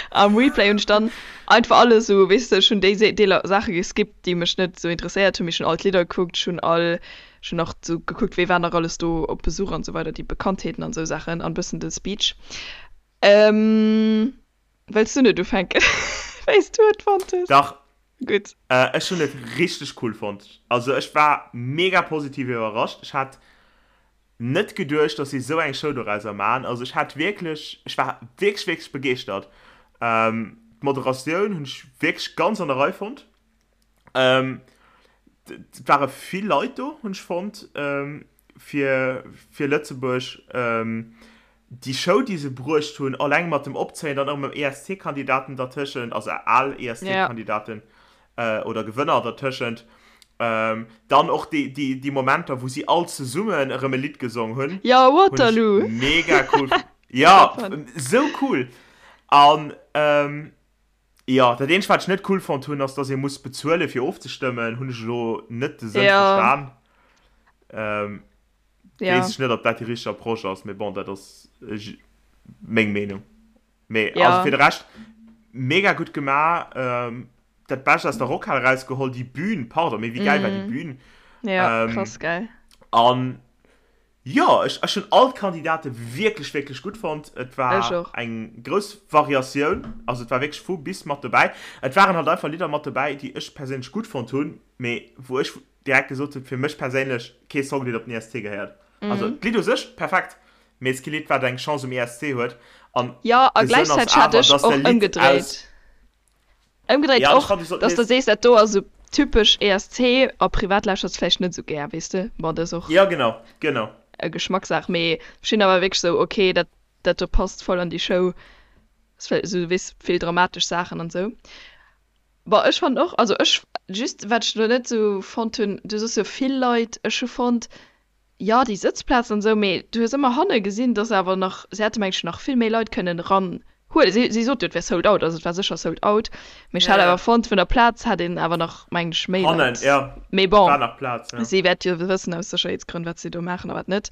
am Replay hunn ech dann einfach alles esou, weess de, ech hunn déi Deeler Saache geskippt, déi mech net esou interesséiert hunn, mee ech hunn all d'Lidder gekuckt, ech hunn all Ech hunn nach sou gekuckt, wee war nach alles do op Besuch an sou weider, déi Bekanntheeten an sou Saachen an bëssen de Speech. Wëlls du net ufänken, wéi s du et fonnt hues? Dach. Gutt. Ech hunn et richteg cool fonnt. Also ech war mega positiv iwwerrascht. Ech hat net geduecht, dass si sou eng Show dorauser man. Also ech hat wierklech, ech war wierklech, wierklech begeeschtert. D'Moderatioun hunn ech wierklech ganz an der Rei fonnt. Ähm, et ware vill Leit do, hunn ech fonnt, ähm, fir, fir Lëtzebuerg. Ähm, déi Show, déi se bruecht hunn, alleng mat dem Opzéien, dann och mam ESC-Kandidaten dertëschent, also al ESC-Kandidaten äh, oder Gewënner dertëschent. Ähm, dann och déi, déi, déi Momenter, wou si all zesummen erëm e Lidd gesong hunn. Ja, Waterloo! Mega cool. Ja, sou cool. An, ähm, Jo, dat eenzegt wat ech net cool fonnt hunn ass dass ee muss bezuelen fir ofzestëmmen, hunn ech elo net de Sënn Ja. verstan. Ähm, Ja. weess ech net ob dat déi richteg Approche ass, mee bon dat ass meng Meenung. Mee Ja. also fir de Rescht mega gutt gemaach, ähm, dat Bescht aus der Rockhal erausgeholl, déi Bühn, pardon, mee wéi gäil war déi Bühn? Ja, Ähm, krass gäil. an Jo, ech ech hunn all d'Kandidate wierklech, wierklech gutt fonnt. Et war Ech och. eng grouss Variatioun, also et war wierklech vu bis mat dobäi. Et waren halt einfach Lidder mat dobäi, déi ech perséinlech gutt fonnt hunn, mee wou ech direkt gesot hunn, fir mech perséinlech kee Song, deen op den ESC gehéiert. Also d'Lidd u sech perfekt, mee et ass kee Lidd, wat eng Chance um ESC huet. An Jo, a de Sënn ass gläichzäiteg hat awer, ech dass och de Lidd aus. ëmgedréit. Ëmgedréit Ja, och, dass de sees, dat do ass esou typesch ESC a privat lauschters de vläicht net esou gär, weess de. Bon, dat ass och Ja, genau, genau. e Geschmackssaach, mee ech sinn awer wierklech esou, ok, dat dat do passt voll an déi Show, ass vläicht esou, weess, vill dramatesch Saachen an esou. Bon, ech fannen och, also ech, just wat ech elo net esou fonnt hunn, du soss jo vill Leit, ech hu fonnt, Jo, déi Sëtzplazen an esou, mee du hues ëmmer hanne gesinn, dass awer nach, se hätte mengen ech nach vill méi Leit kënnen eran huelen. Si, si sot jo, et wär sold out, also et war sécher sold out, mee ech Ja, hat ja. awer fonnt, vun der Plaz hätt een awer nach, mengen ech, méi Hannen, Leit. ja, Mee bon, war nach Plaz, ja. si wäert jo wëssen aus Sécherheetsgrënn, wat si do maachen a wat net.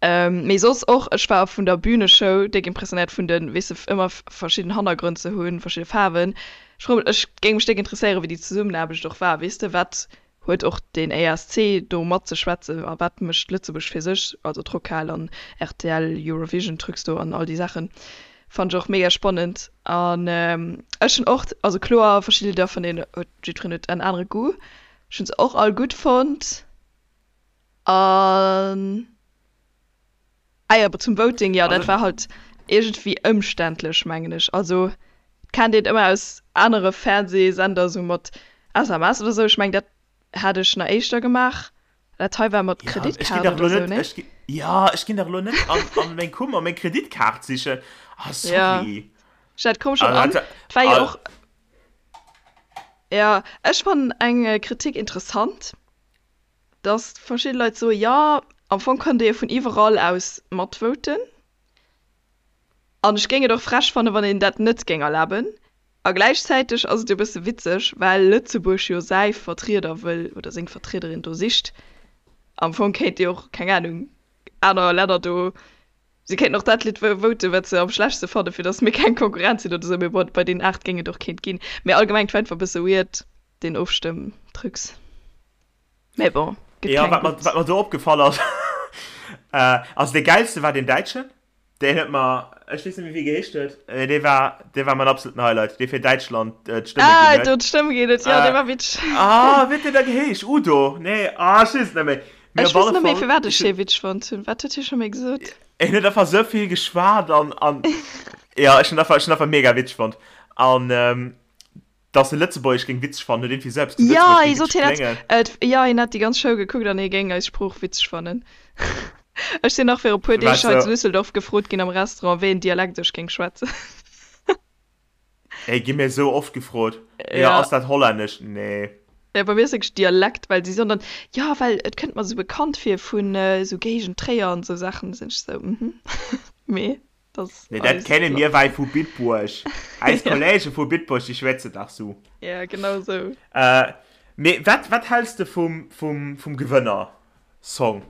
Mee soss och, ech war vun der Büneshow déck impressionéiert, vun de, weess de, ëmmer verschidden Hannergrënn ze hunn, verschidde Faarwen. Ech froe mech, ech géing mech déck interesséieren, wéi déi Zesummenaarbecht och war, weess de, wat Huet och den ESC do matzeschwätzen? A wat mécht Lëtzebuerg fir sech? Also d'Rockhal an rtl Eurovision Trucs do an all déi Saachen fannen ech och mega spannend. An ech hunn och, also kloer verschidde Lidder vun deenen huet jiddwereen huet en anere Goût. Ech hunn se och all gutt fonnt an. Ah jo, zum Voting, jo, dat war halt iergendwéi ëmständlech, mengen ech. Also, et kennt een ëmmer aus anere Fernsehsender esou mat SMS oder esou. Ech mengen, dat hat ech nach éischter gemaach. Dat hei war mat Ja, ech ginn Kreditkaart dach oder elo esou, net, ne? ech gi, ja, ech ginn dach elo net an, an meng Kummer meng Kreditkaart sichen. Ah, Ja, sorry. ech dat koum schonn Ah, an. dat, Et war jo ah, och, ja, ech fannen eng Kritik interessant. dass verschidde Leit soen, jo, am Fong konnt ee jo vun iwwerall aus matvoten. An ech géing et och frech fannen, wann een dat net géing erlaben. A gläichzäiteg ass et jo e bësse witzeg, well Lëtzebuerg jo säi Vertrieder wëll oder seng Vertriederin do sicht. Am Fong kéint jo och, keng Anung, aner Länner do, si kéinten och dat Lidd voten, wat se am schlechtste fannen, fir dass mir keng Konkurrenz sinn oder esou. Mee bon, bei deenen 8 géing et och keent ginn. Mee allgemeng, et war einfach e bësse weird, deen Ofstëmmtrucs. Mee bon, gëtt Ja, keng wat mer, gutt. wat mer do opgefall ass, äh, also dee gäilste war deen Däitschen, deen huet mer, ech weess net méi wéi geheescht huet, mee dee war, dee war mäin absoluten Highlight, dee fir Däitschland äh, d'Stëmme Ah, ginn huet. do d'Stëmm ginn huet, jo, dee Äh, war witzeg. ah, wéi huet deen da geheescht? Udo? Nee, ah, ech weess et net méi. Mee Ech op weess alle net méi, Fall, firwat ech ech hunn, dee witzeg fonnt hunn. Wat huet hie scho méi gesot? en huet einfach sou vill geschwat an, an. Ja, ech hunn einfach, ech hunn einfach mega witzeg fonnt. An ähm, dass e Lëtzebuergesch géing witzeg fannen, huet iergendwéi selbst gesot, Ja, hie sot, hien hätt, et, ja, hien hätt déi ganz Show gekuckt an hie géing eis Sprooch witzeg fannen. Ech sinn nach viru puer Deeg hei zu Düsseldorf gefrot ginn am Restaurant, wéi en Dialekt ech géing schwätzen. Ey, gi mir esou oft gefrot. Ja, ass dat Hollännesch? Nee. Ja, bei mir ass wierklech Dialekt, well si soen dann, jo, well et kënnt mer esou bekannt vir vun esou Géigend Tréier an esou Saachen. Da sinn ech esou, mhm, mee dat ass Nee, dat eis kenne mir wei vu Bitburg. Eis Kollege vu Bitburg, déi schwätzen dach sou. Ja, genau esou. Mee wat, wat häls de vum, vum, vum Gewënner-Song?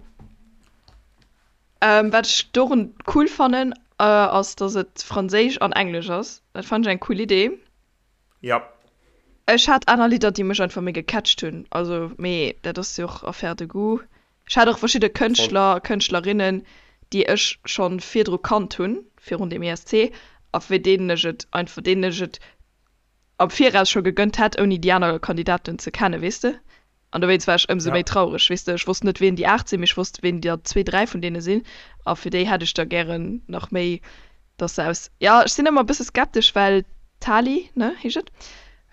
Wat ech dorun cool fannen, ass dass et franséisch an englesch ass. Dat fannen ech eng cool Idee. Jap. Ech hat aner Lidder déi mech einfach méi gecatcht hunn, also mee dat ass jo och Affaire de goût. Ech hat och verschidde Kënschtler a Kënschtlerinnen déi ech schonn virdru kannt hunn, virun dem ESC, a fir deenen ech et einfach, deenen ech et am Viraus scho gegënnt hätt ouni déi aner Kandidaten ze kennen, weess de. An dowéinst war ech ëmsou méi traureg, weess de. Ech wosst net, wien déi 8 sinn, mee ech wosst, wien der zwee, dräi vun deene sinn. A fir déi hätt ech da gären nach méi, dass se aus. Jo, ech sinn ëmmer e bësse skeptesch, well d'Tali, ne, heescht et?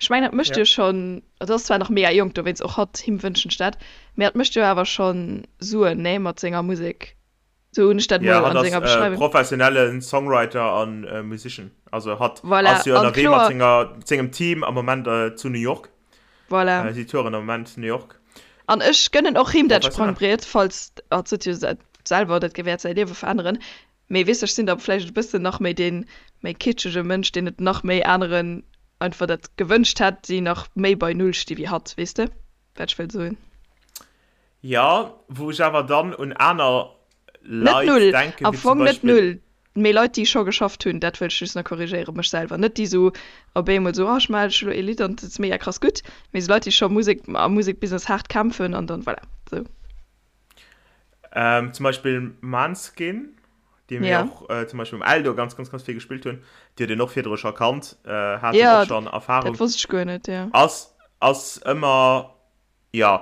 Ech mengen, dat mécht jo schonn, et ass zwar nach mega jonk, dowéinst och hatt, him wënschen ech dat, mee hatt mécht jo awer schonn Suen, ne, mat senger Musek. Sou hunn ech dat mol an senger Beschreiwung. Ja, hatt ass professionelle Songwriter an Musician. Also hatt ass jo ënnerwee mat senger, sengem Team am Moment zu New York. Voilà. Si touren am Moment New York. An ech gënnen och him dat Sprangbriet, falls, hatt sot jo selwer, dat wäert säi Liewe veränneren. Mee weess, ech sinn da vläicht e bëssen nach méi dee méi kitschege Mënsch, deen et nach méi aneren einfach dat gewënscht hätt, déi nach méi bei Null sti wéi hatt. Weess de, wat ech wëll soen? Jo, wou ech awer dann un aner Net Leit null, denken, am wéi zum Fong net Beispill. null, mee Leit, déi scho geschafft hunn, dat wëll ech just nach korrigéieren, mech selwer, net déi sou op eemol sou, oh ech maachen elo ee Lidd an et ass mega krass gutt, mee sou Leit, déi scho Musek, am Musekbusiness haart kämpfen an dann, voilà, sou. Ähm, zum Beispill Manskin, déi mir Ja. och äh, zum Beispill um Eldo ganz, ganz, ganz vill gespillt hunn, déi huet een och virdru scho kannt, äh, haten Ja, och schonn Erfahrung. dat wosst ech guer net, ja. Ass, ass ëmmer Jo,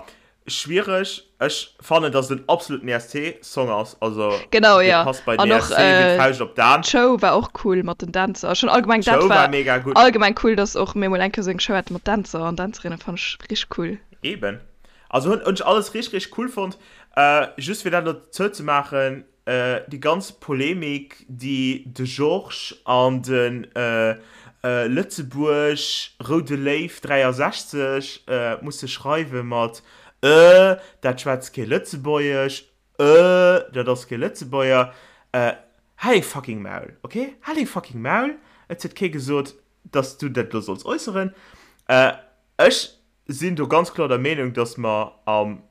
schwiereg. Ech fannen, dass et en absoluten ESC-Song ass. Also, Genau, dee ja. passt bei den An och ESC wéi d'Fauscht op d'An. d'Show war och cool mat den Dänzer. Schon allgemeng, dat D'Show war war mega gutt. allgemeng cool, dass och mir mol eng Kéier sou eng Show hate mat Dänzer an Dänzerinnen, fannt ech richteg cool. Eben. Also hunn ech alles richteg, richteg cool fonnt. Just fir dat elo zouzemaachen, Déi ganz Polemik, déi de Georges an de Lëtzebuerg Roude Léiw 63 musse schreiwe mat Äh, dat schwätzt kee Lëtzebuergesch, Äh, dat ass kee Lëtzebuerger, Hal deng fucking Maul, ok? Hal deng fucking Maul! Et huet kee gesot, dass du dat elo solls äusseren. Ech sinn do ganz kloer der Meenung, dass mer am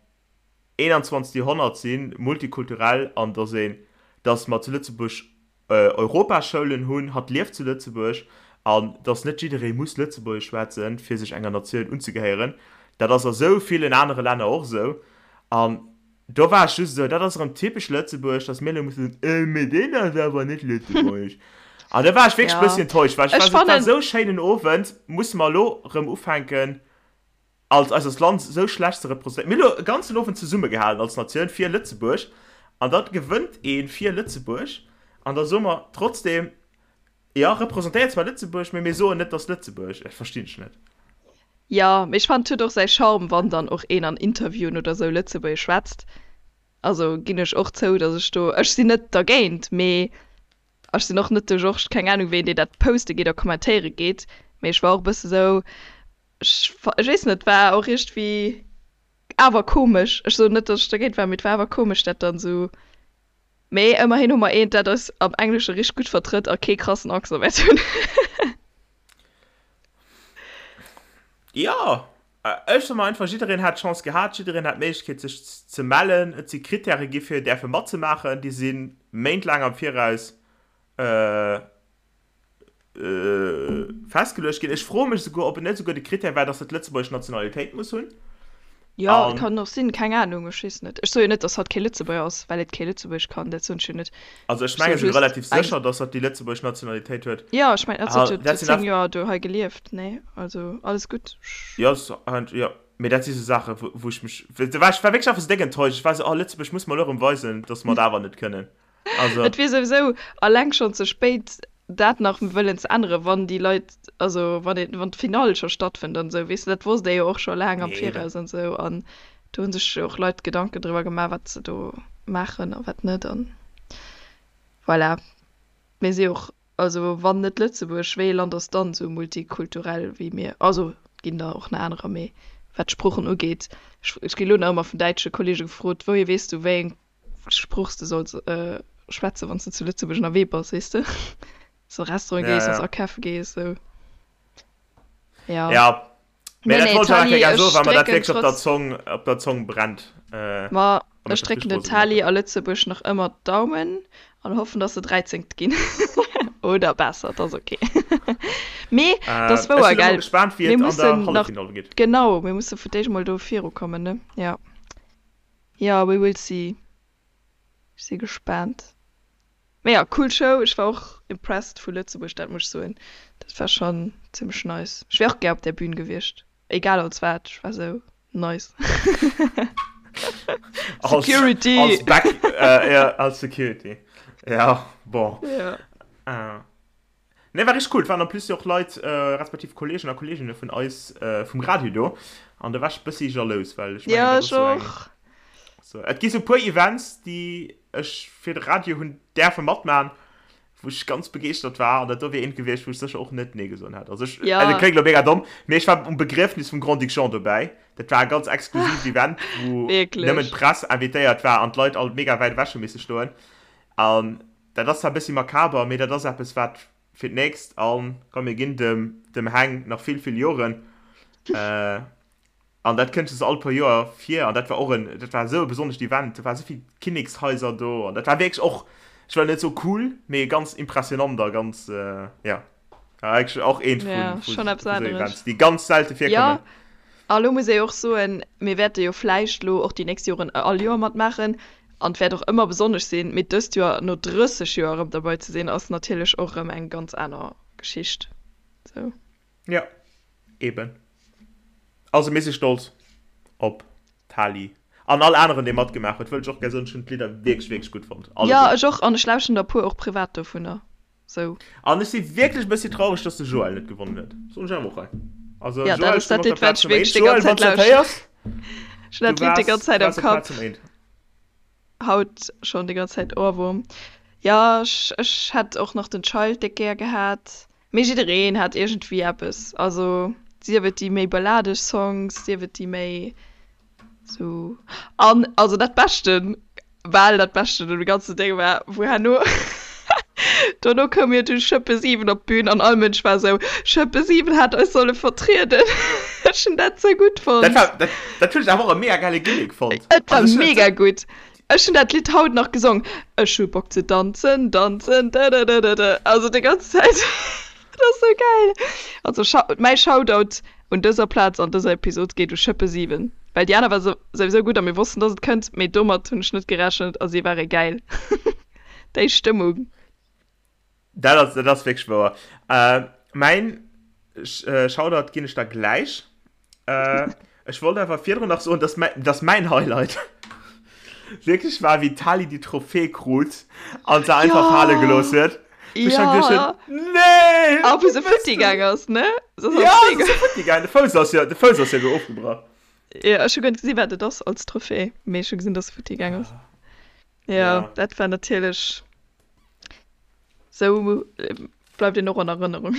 21. Joerhonnert sinn, multikulturell an dass een, dass mer zu Lëtzebuerg Europaschoulen hunn, hatt lieft zu Lëtzebuerg an dass net jidderee muss Lëtzebuergesch schwätzen, fir sech enger Natioun unzegehéieren. Dat ass a sou villen anere Länner och esou. An do war ech just esou, dat ass erëm typesch Lëtzebuerg, dass mir elo mussen soen, äh, mee deen ass awer net Lëtzebuergesch. An da war ech wierklech e Ja, bëssi enttäuscht, well ech ech war esou, et war fannen, esou schéinen Owend, musse mer elo erëm ufänken, als eist Land esou schlecht ze representéieren. Mir hu lo e ganzen Owend zesummegehalen als Natioun fir Lëtzebuerg an da gewënnt ee fir Lëtzebuerg an da soe mer trotzdem, jo, representéiert zwar Lëtzebuerg, mee mir soen net, dass Lëtzebuerg. Dat verstinn ech net. Jo, mee ech fannen et huet och säi Charme, wann dann och een an Interviewen oder sou Lëtzebuergesch schwätzt. Also ginn ech och zou, dass ech do, ech sinn net dergéint, mee Ech sinn och net de Georges, keng Ahnung ween, deen dat poste geet a kommentéiere geet, mee ech war och e bësse sou, ech ech weess net, war och iergendwéi awer komesch. Ech soen net, datt ech dergéint war, mee et war awer komesch dat dann sou. Mee ëmmerhin hu mer eent, dat eis am Englesche richteg gutt vertrëtt a kee krassen Accent wäert hunn. Jo, ech soe mer einfach, jiddereen hat d'Chance gehat, jiddereen hat d'Méiglechkeet sech ze mellen. Et si Krittäre gi fir däerfe matzemaachen, déi si méintlaang am Viraus festgeluecht ginn. Ech froe mech esouguer, ob et net esouguer de Krittär war, datt se d'lëtzebuergesch Nationalitéit muss hunn. Jo, et kann och sinn, keng Anung, ech weess net. Ech soe jo net, datt hatt kee Lëtzebuerger ass, well et kee Lëtzebuergesch kann, dat soen ech jo net. Also ech menge sinn relativ sécher, datt hatt déi lëtzebuergesch Nationalitéit huet. Jo, ech mengen, hatt huet jo 10 Joer do hei gelieft, nee? Also alles gutt. Jo, jo, mee dat si sou Saachen, wou ech mech, do war ech war wierklech einfach sou déck enttäuscht. Ech war sou, oh Lëtzebuerg muss mer elo erëm weisen, datt mer et awer net kënnen. Also. Et wier souwisou alleng schonn ze spéit. dat nach wëllen ze änneren, wann déi Leit, also wann een, wann d'Finall scho stattfënnt an esou, weess de, dat wosst ee jo och scho laang am Viraus an esou an do hu sech jo och Leit Gedanken driwwer gemaach, wat se do maachen a wat net an voilà. Mir si och, also wann net Lëtzebuerg, wéi ee Land ass dann esou multikulturell wéi mir? Also et ginn der och nach anerer, mee wat d'Sproochen ugeet, ech, ech gi lo nach ëmmer vun däitsche Kollege gefrot, wouhier weess du, wéi eng Sprooch s de solls schwätzen, wann s de zu Lëtzebuerg ënnerwee bass, weess de? So Restaurant Ja, gees, wann s ja. akafe gees, sou. Ja. Ja, mee Nee, dat nee, wollt ech awer Tali, gär soen, ech well mer dat drécken wierklech op der trotz. Zong, op der Zong brennt. Äh, Ma a mech ech dat drécken richteg den rose gemaach Tali huet. a Lëtzebuerg nach ëmmer d'Daumen an hoffen, dass se Dräizengt ginn. Oder besser, 't ass ok. Mee 't Äh, ass ech wouer, sinn elo mol gell? gespaant, wéi Mir et an der mussen nach, Halleffinall geet. genau, mir musse fir d'éischt mol do virukommen, ne? Ja. Ja, we will see. Ech si gespaant. Mee ja, cool Show. Ech war och impressed vu Lëtzebuerg, dat muss ech soen. Dat war schonn zimmlech nice. Ech wär och gär op där Bühn gewiescht, egal als wat. Ech war sou, nice. Als, Security! als Back, äh, ja, als Security. Ja, bon. Ja. Äh. Nee, war richteg cool. Et waren en plus jo och Leit, respektiv Kollegen a Kolleginne vun eis vum Radio do. An do war ech bëssi jalous, well ech mengen, Ja, dat ech ass sou eng, och. sou, et gi sou puer Events, déi ech fir de Radio hunn däerfe matman, wou ech ganz begeeschtert war. An dat do wier eent gewiescht, wou ech sécher och net nee gesot hätt. Also ech, Ja. also kléngt elo mega domm, mee ech war um Begriefnis vum Grand-Duc Jean dobäi. Dat war e ganz exklusiivt Event, wou nëmmen Wierklech. d'Press invitéiert war an d'Leit all mega wäit ewech hu misse stoen. An Dat ass zwar e bëssi makaber, mee dat ass eppes, wat fir d'nächst, a komm, mir ginn dem, dem Heng nach vill, vill Joren, an dat kënnt just all puer Joer vir, an dat war och en, dat war esou e besonnescht Event, do ware sou vill Kinnekshaiser do, an dat war wierklech och, ech wëll net soe cool, mee ganz impressionant a ganz, jo. Eigentlech och eent vun, Ja, vun schon eppes esou aneres. Events, déi ganz selte Ja, virkommen. a lo muss ee jo och soen, mir wäerte jo vläicht lo och déi nächst Joren all Joer matmaachen an et wäert och ëmmer besonnesch sinn, mee dëst Joer no 30 Joer erëm derbei ze sinn, ass natierlech och erëm eng ganz aner Geschicht. Sou. Ja, eben. Also mir si stolz op d'Tali an all aneren, dee matgemaach huet, wëll ech och gär soen, ech hunn d'Lidder wierklech, wierklech gutt fonnt, Ja, alleguer. ech och, an ech lauschten der puer och privat dovunner. Sou. An ech si wierklech e bëssi traureg, dass de Joël net gewonnen huet. Soen ech awer och hei. Also Ja, dat Joël, ass ech sinn dat op der Lidd, wat Plaz ech Nummer wierklech 1. déi Joël, ganz wann Zäit s du dat lauschten. héiers, Ech hunn du dat Lidd déi waars, ganz du Zäit am waars op Plaz Kapp. Nummer 1. Haut schonn déi ganz Zäit Ohrwurm. Ja, ech, ech hätt och nach den Child déck gär gehat. Mee jiddereen hat iergendwéi eppes. Also sief et déi méi balladeg Songs, sief et déi méi Sou, an also dat Beschten, bal dat Beschten un dem ganzen Déng war, wou herno, dono koum jo du Schëppe 7 op d'Bün an all Mënsch war sou, Schëppe 7 hätt eis solle vertrieden. Ech hunn dat sou gutt Dat fonnt. war, dat, dat hunn ech awer och e mega gäile Gimmick fonnt. Et war Also ech hunn dat mega sou. gutt. Ech hunn dat Lidd haut nach gesong, Ech hu Bock ze danzen, danzen, dëdëdëdëdë, also déi ganz Zäit. Dat ass sou gäil. Also mäi Shoutout un dëser Plaz an dëser Episod geet u Schëppe 7, well déi aner war souwisou gutt a mir wossten dass et kënnt, mee domat hunn ech net gerechent a si ware gäil. Déi Stëmmung. Dat ass, dat ass wierklech wouer. Mäin Shoutout ginn ech der gläich. Ech wollt awer virdrun nach soen, dass mäin, dass mäin Highlight wierklech war, wéi d'Tali déi Trophée krut an se einfach fale gelooss huet. Wou ech dann geduecht hunn, Nee! A wou se futti gaang ass, ne? Se ass Ja, op d'Zee se ass futti gaang. De Fouss ass jo, de Fouss ass jo elo ofgebrach. Jo, ech hu guer net gesi wat et ass als Trophée, mee ech hu gesinn, dass se futti gaang ass. Jo, dat war natierlech, sou bleift een och an Erënnerung.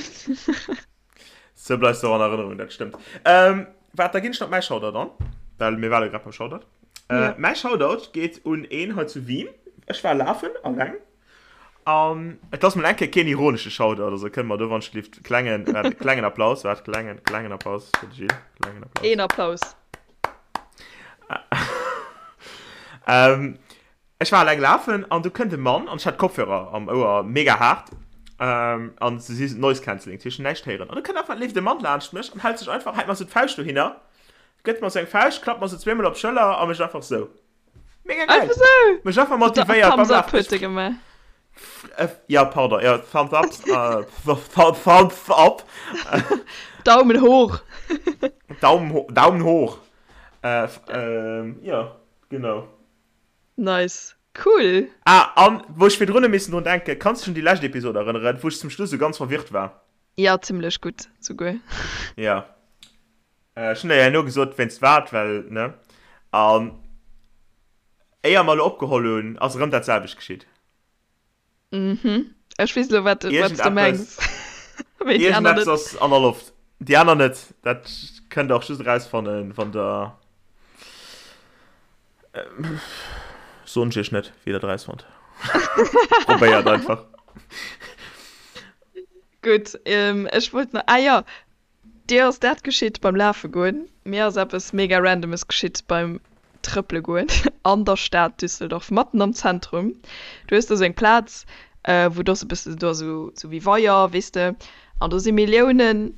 Sou bleifs de och an Erënnerung, dat stëmmt. Ähm, waart, da ginn ech nach mäi Shoutout an, well mir ware grad beim Shoutout. Äh, Ja. Mäi Shoutout geet un een hei zu Wien. Ech war lafen, alleng. An et ass mol eng Kéier keen ironesche Shoutout, also kënne mer do wann ech gelift klengen, waart, klengen Applaus, waart, klengen, klengen Applaus fir de Gilles, klengen Applaus. Een Applaus. Ähm, Ech war eleng lafen an du kënnt e Mann an ech hat Kopfhörer am Ouer, mega haart an se si Noise Cancelling, dat heescht näischt héieren. An du kënnt einfach leeft e Mann laanscht mech an hält sech einfach, hält mer sou d'Fauscht dohinner, gëtt mer sou eng Fauscht, klappt mer sou zweemol op d'Schëller a mécht einfach sou. Mega geil! Einfach sou? Mech einfach motivéiert beim Thumbs up Lafen. huet e gemaach. Ja, pardon, ja, Thumbs up, Thumbs up. Daumen hoch. Daumen, Daumen hoch. Jo, genau. Nice. Cool. Ah, an wou ech virdrun hu missen drun denken, kanns du dech un déi lescht Episod erënneren, wou ech zum Schluss esou ganz verwirrt war? Ja, zimlech gutt souguer. Ja. Ech hunn der jo herno gesot, wéinst wat, well, ne? An éier mer elo opgeholl hunn, ass erëm dat selwecht geschitt. Mhm. Ech weess elo, wat, wat s du mengs. Mee déi aner net. Iergendeppes ass an der Loft. Déi aner net. Dat kënnt der och just erausfannen, wann der. Soen ech iech net, wéi der dat erausfannt. Probéiert einfach. Gutt, ech wollt nach, ah jo, Dir ass dat geschitt beim Lafe goen, mir ass eppes mega randomes geschitt beim Trëppele goen an der Stad Düsseldorf, matten am Zentrum. Du hues do sou eng Plaz, wou do ass e bëssen, do ass sou sou wéi Weier, weess de, an do si Milliounen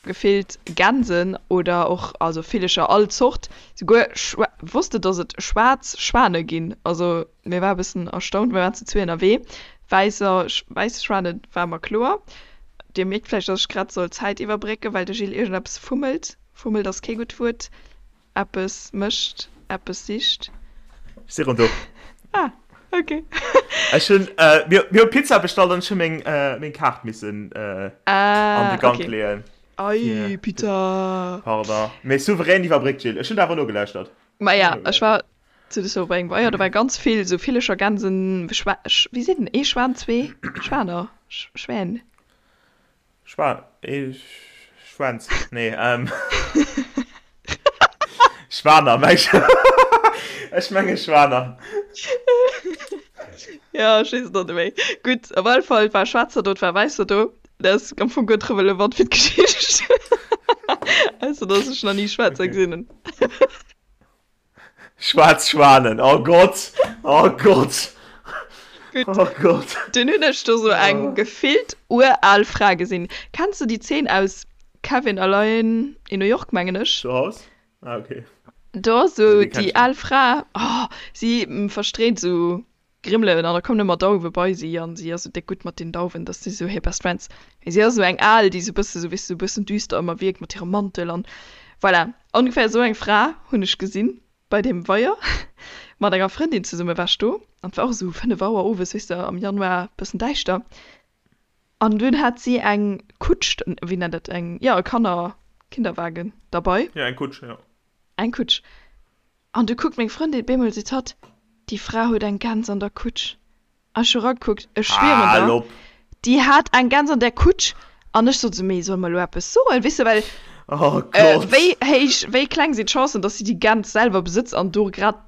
gefillt Gänsen oder och also Villecher all Zort, souguer Schwa wosst de dass et schwaarz Schwane ginn? Also mir war e bëssen erstaunt, mir waren zu zwee ënnerwee, wäisser wäiss Schwane war mer kloer. Dir mierkt vläicht, dass ech grad soll d'Zäit iwwerbrécken, well de Gilles iergendeppes fummelt. Fummelt ass kee gutt Wuert. Eppes mécht, eppes sicht. Ech si rëm do. Ah, ok. Ech hunn, mir, mir hu Pizza bestallt an ech hu meng, meng Kaart missen an de Ah, Gank ok. leeën. Ei, Pizza! Pardon. Mee souverän iwwerbréckt, Gilles. Ech hunn der awer nogelauschtert. Maja, ech war Zu Düsseldorf bei engem Weier, do war ganz vill sou Villecher, Gänsen, Schwa, wéi seet en, ee Schwan, zwee Schwaner, Schwän. Schwan, ee Schwänz, nee, ähm, Schwaner, meng ech, ech menge Schwaner. Ja, ech weess et och net méi. Gutt, op alle Fall, et war Schwaarzer do, et war Wäisser do. Dat ass am Fong guer net relevant fir d'Geschicht, ausser dass ech nach ni Schwaarzer gesinn hunn. Schwaarz Schwanen, oh Gott, oh Gott, Gutt. oh Gott. Dunn hunn ech do sou eng gefillt ural Fra gesinn. Kenns du déi Zeen aus Kevin allein in New York, mengen ech? Zu Haus? Ah, okay. Do ass sou Nee, déi kenn déi ech net. al Fra, oh, si verstreet sou Grimmelen an da kommen ëmmer Dauwe bei si an si ass sou déck gutt mat den Dauwen, dass si sou hir Best Friends. Mee si ass sou eng al, déi sou bësse sou, weess de, sou bëssen düster ëmmer wierkt mat hirem Mantel an voilà. Ongeféier sou eng Fra hunn ech gesinn bei deem Weier. Mat enger Frëndin zesumme war ech do an et war och sou 5 Auer owes, weess de, am Januar, bëssen däischter. An dunn hat si eng Kutsch, wéi nennt dat, eng, jo e Kanner, Kinderwagen derbei. Jo, eng Kutsch, jo. Eng Kutsch. An du kuckt meng Frëndin, bemol seet hatt, déi Fra huet eng Gäns an der Kutsch. An ech hu ragekuckt, ech schwieren Hal der, op! déi hat eng Gäns an där Kutsch. An ech sot esou, mee solle mer elo eppes soen, weess de, well Oh Gott! wéi héich, wéi kleng sinn d'Chancen, dass si déi Gäns selwer besëtzt an do grad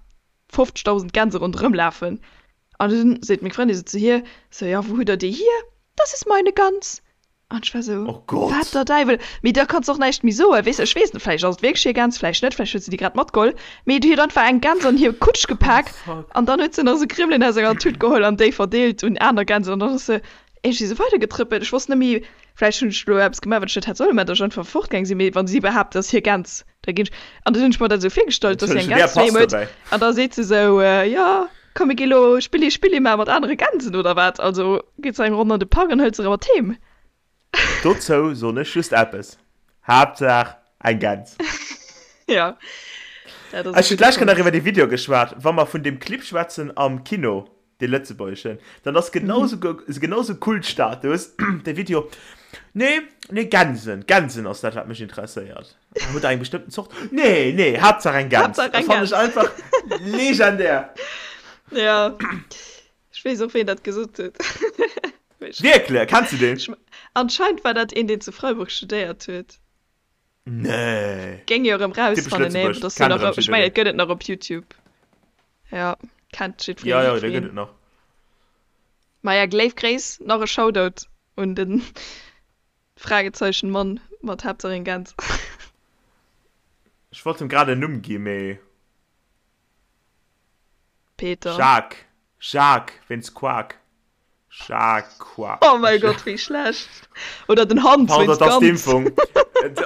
50.000 Gänse ronderëm lafen. An dunn seet meng Frëndin esou zu hir, sou, jo, wou hutt der déi hier? Das ist meine Gans. An ech war sou, Oh Gott! Wat der Däiwel! Mee da kanns de och näischt méi soen, weess de. Ech weess net, vläicht ass et wierklech hir Gäns, vläicht net, vläicht huet se déi grad matgeholl. Mee déi huet einfach eng Gäns an hir Kutsch gepak an dann huet se nach sou Grimmelen aus enger Tut geholl an déi verdeelt un aner Gänsen an dann ass se iergendwéi sou weidergetrëppelt. Ech wosst net méi, vläicht hunn ech elo eppes gemaach, wat ech net hätt solle maachen, datt ech einfach fortgaang sinn. Mee wa si behaapt, et ass hir Gäns, da ginn ech. An dann hunn ech mer dat esou virgestallt, datt si eng Entschëllegen, Gäns wer doheem passt huet dobäi? an da seet se sou, Jo, Komm mir gi lo Spilli Spilli maache mat anere Gänsen oder wat? Also geet se eng Ronn an de Park an hëlt se erëm mat heem. Dozou soen ech just eppes, Haaptsaach eng Gäns. Jo, dat ass e Ech hunn gudde d'lescht Kéier nach Punkt. iwwer dee Video geschwat. Wa mer vun deem Clip schwätzen am Kino, dee lëtzebuergeschen, dann ass genau sou, genau sou Kultstatus, dee Video. Nee, nee, Gänsen, Gänsen ass dat, wat mech interesséiert. Hutt der eng bestëmmten Zort? Nee, nee, Haaptsaach eng Gäns. Haaptsaach eng Dat fannen Gäns. ech einfach legendär. Ja, ech weess och, ween dat gesot huet. Wierklech? Kenns du deen? Ech, anscheinend war dat een, deen zu Freiburg studéiert huet. Nee. Géing jo erëm Typesch rausfannen, nee, Lëtzebuerg, dass du kennt nach, erëm ech mengen, jiddereen. et gëtt et nach op YouTube. Ja, kennt jiddwereen, Ja, ja, dee gëtt jiddwereen. et nach. Maja, léif Gréiss, nach e Shoutout un den Fragezeichen Mann mat Haaptsaach eng Gäns. Ech wollt em grad en Numm gi mee. Peter. Jacques, Jacques, wéinst Quack. Jacques. Oh mäi Gott, wéi schlecht. Oder den Hans Pardon, wéinst dat ass Gans. d'Impfung.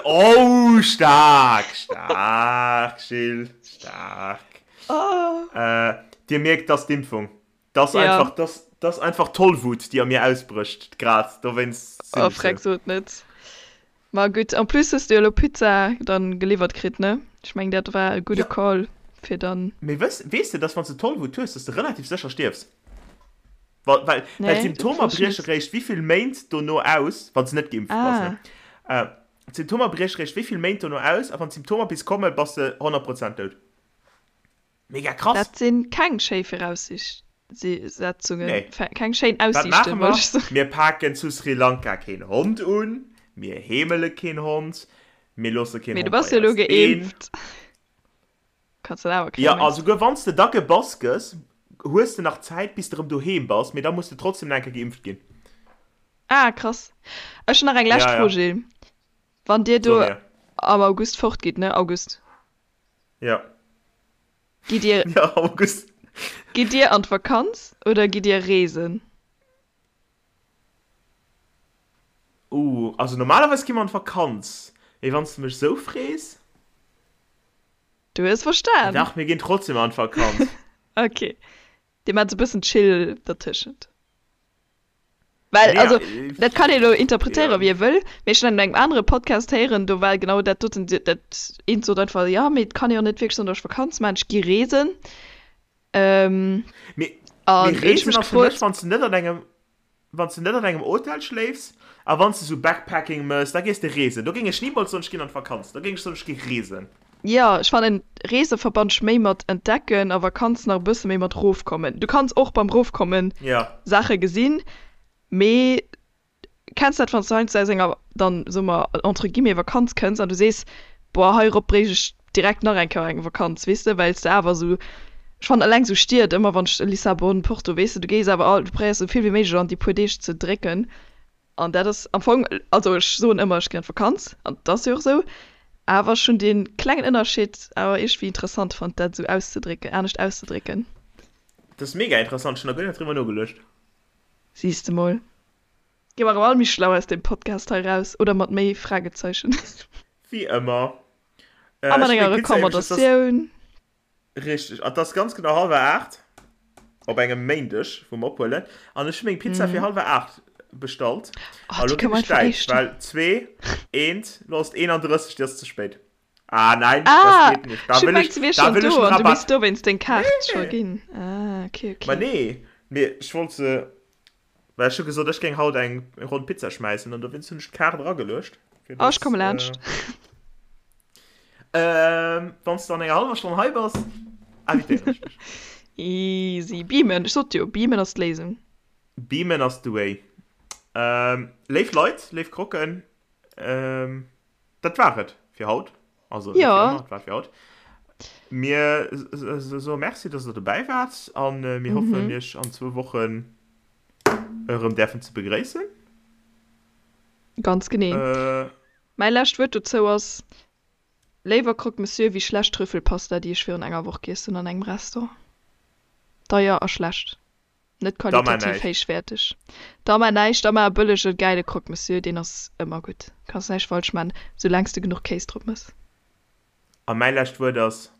Oh, staark, staark, Jill, staark. Oh. Dir mierkt, dat ass d'Impfung. Dat ass Ja. einfach, dat ass einfach Tollwut, déi a mir ausbrécht grad. Dowéinst sinn Oh, ech sou. freck, sot net. Ma gutt, en plus hues de jo elo Pizza dann geliwwert kritt, ne? Ech mengen, dat war e gudde Ja. Call. Fir dann. Mee wëss, weess de, dass wann s de Tollwut hues, dass de relativ sécher stierfs? Well, well, well Nee, dat d'Symptomer wosst ech brieche net. réischt wéivill Méint dono aus, wann s de net geimpft bass, ne? Ah. Äh, d'Symptomer brieche réischt wéivill Méint dono aus, a wann d'Symptomer bis kommen, bass de 100 Prozent dout. Mega krass! Dat si keng schéi Viraussetzungen, Nee. keng schéin Wat maache Aussiichten, wollt mer? ech soen. Mir paken zu Sri Lanka keen Hond un, mir heemele keen Hond, mir loosse keen Mee du Hond bass bei jo elo eis een. geimpft. Kanns dat awer Jo, kréien, a mengs de? souguer wann s de da gebass gëss, hues de nach Zäit, bis de erëm doheem bass, mee da muss de trotzdem nach eng Kéier geimpft ginn. Ah, krass. Ech hunn nach eng lescht Ja, Fro, ja. Gilles. Wann dir So do mir. am August fortgitt, ne? August. Ja. Gitt dir, Ja, August. gitt dir an d'Vakanz oder gitt dir reesen? Uh, also normalerweis gi mer an d'Vakanz, mee wann s de mech sou frees? Du hues verstan. Dach, mir ginn trotzdem an d'Vakanz. Ok, dir maacht sou bëssen chill dertëschent. Well, Nee, also, äh, dat kann ee lo interpretéieren, ja. wéi ee wëll, mee ech hunn an engem anere Podcast héieren, do war genau dat doten, dat eent sot einfach, jo, mee et kann ee jo net wierklech soen, datt ech Vakanz maachen, ech gi reesen. Ähm, Mee, an mee do hunn ech Reesen mech ass fir mech, gefrot, wann s de net an engem, wann s de net an engem Hotel schléifs a wann s de sou Backpacking mëss, da gees de reesen. Do géing ech nimools soen, ech ginn an d'Vakanz. Do géing ech soen, ech gi reesen. Jo, ech fannen Reese verbannt ech méi mat entdecken a Vakanz nach e bësse méi mat rofkommen. Du kanns och beim Rofkommen Ja. Saache gesinn, mee Kenns dat, wann s du heiansdo aus enger, dann soe mer entre guillemets, Vakanz kënns an du sees, boah, heirop bréicht ech direkt nach eng Kéier eng Vakanz, weess de, well s de awer esou, ech fannen eleng esou Stied, ëmmer wann ech Lissabon, Porto, weess de, du gees awer all, du probéiers esou vill wéi méiglech an déi puer Deeg ze drécken an dat ass am Fong, also ech soen ëmmer, ech ginn an d'Vakanz an et ass jo och esou, awer ech hunn dee klengen Ënnerscheed awer iergendwéi interessant fonnt, dat esou auszedrécken, anescht auszedrécken. Dat ass mega interessant, ech hunn nach guer net driwwer nogeluecht. Siehs de mol. Gi mer erëm all méi schlau aus deem Podcast hei raus, oder mat méi Fragezeichen. Wéi ëmmer. A mat enger Recommandatioun. Richteg. An et ass ganz genau hallwer 8 op engem Méindeg, wou mer ophuelen. An ech hu meng Pizza fir hallwer 8 bestallt. Oh, A lo déi ginn kënne mer ech einfach däitsch, éischter. well 2, 1, lo ass et 31, déi ass ze spéit. Ah nein, Ah, das geht nicht. Da ech hu will gemengt, ich, se wier da schonn will ich do einen an du misst Rabatt. dowéinst deng Kaart scho Nee. ginn. Ah, okay, Ma okay. nee, mee ech wollt se, well ech hu gesot, ech géing haut eng Ronn Pizza schmäissen an dowéinst hunn ech d'Kaart erageluecht, fir Oh, ech dass, komme laanscht. äh, wann s de an enger hallwer Stonn hei bass, invitéieren ech dech. Easy. Beamen, ech sot jo, beamen ass d'Léisung. Beamen ass the way. Ähm, léif Leit, léif Croquen, ähm, Dat war et fir haut. Also net Ja. fir ëmmer, et war fir haut. Mir soe Merci, dass der dobäi waart an mir hoffen, iech an zwou Wochen erëm däerfen ze begréissen. Ganz genee. Mäi lescht Wuert dozou ass, Léiwer Croque Monsieur wéi schlecht Trüffelpasta, déi ech virun enger Woch giess hunn an engem Restaurant. Deier a schlecht. Net Da mar qualitativ näischt. héichwäerteg. Da mar näischt, da mar e bëllege gäile Croque Monsieur, deen ass ëmmer gutt. Kanns näischt falsch man, soulaangs de genuch Kéis drop mëss. A mäi lescht Wuert ass,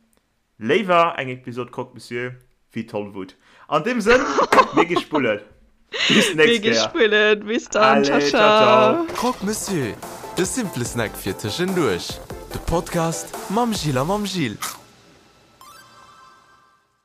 Léiwer eng Episod Croque Monsieur wéi Tollwut. An deem Sënn, mir gi spullen. Bis Mir d'nächst gi Kéier. spullen. Bis dann. Ciao Allez, ciao, ciao. ciao. Croque Monsieur, de simple Snack fir tëschenduerch. De Podcast mam Gilles a mam Gilles.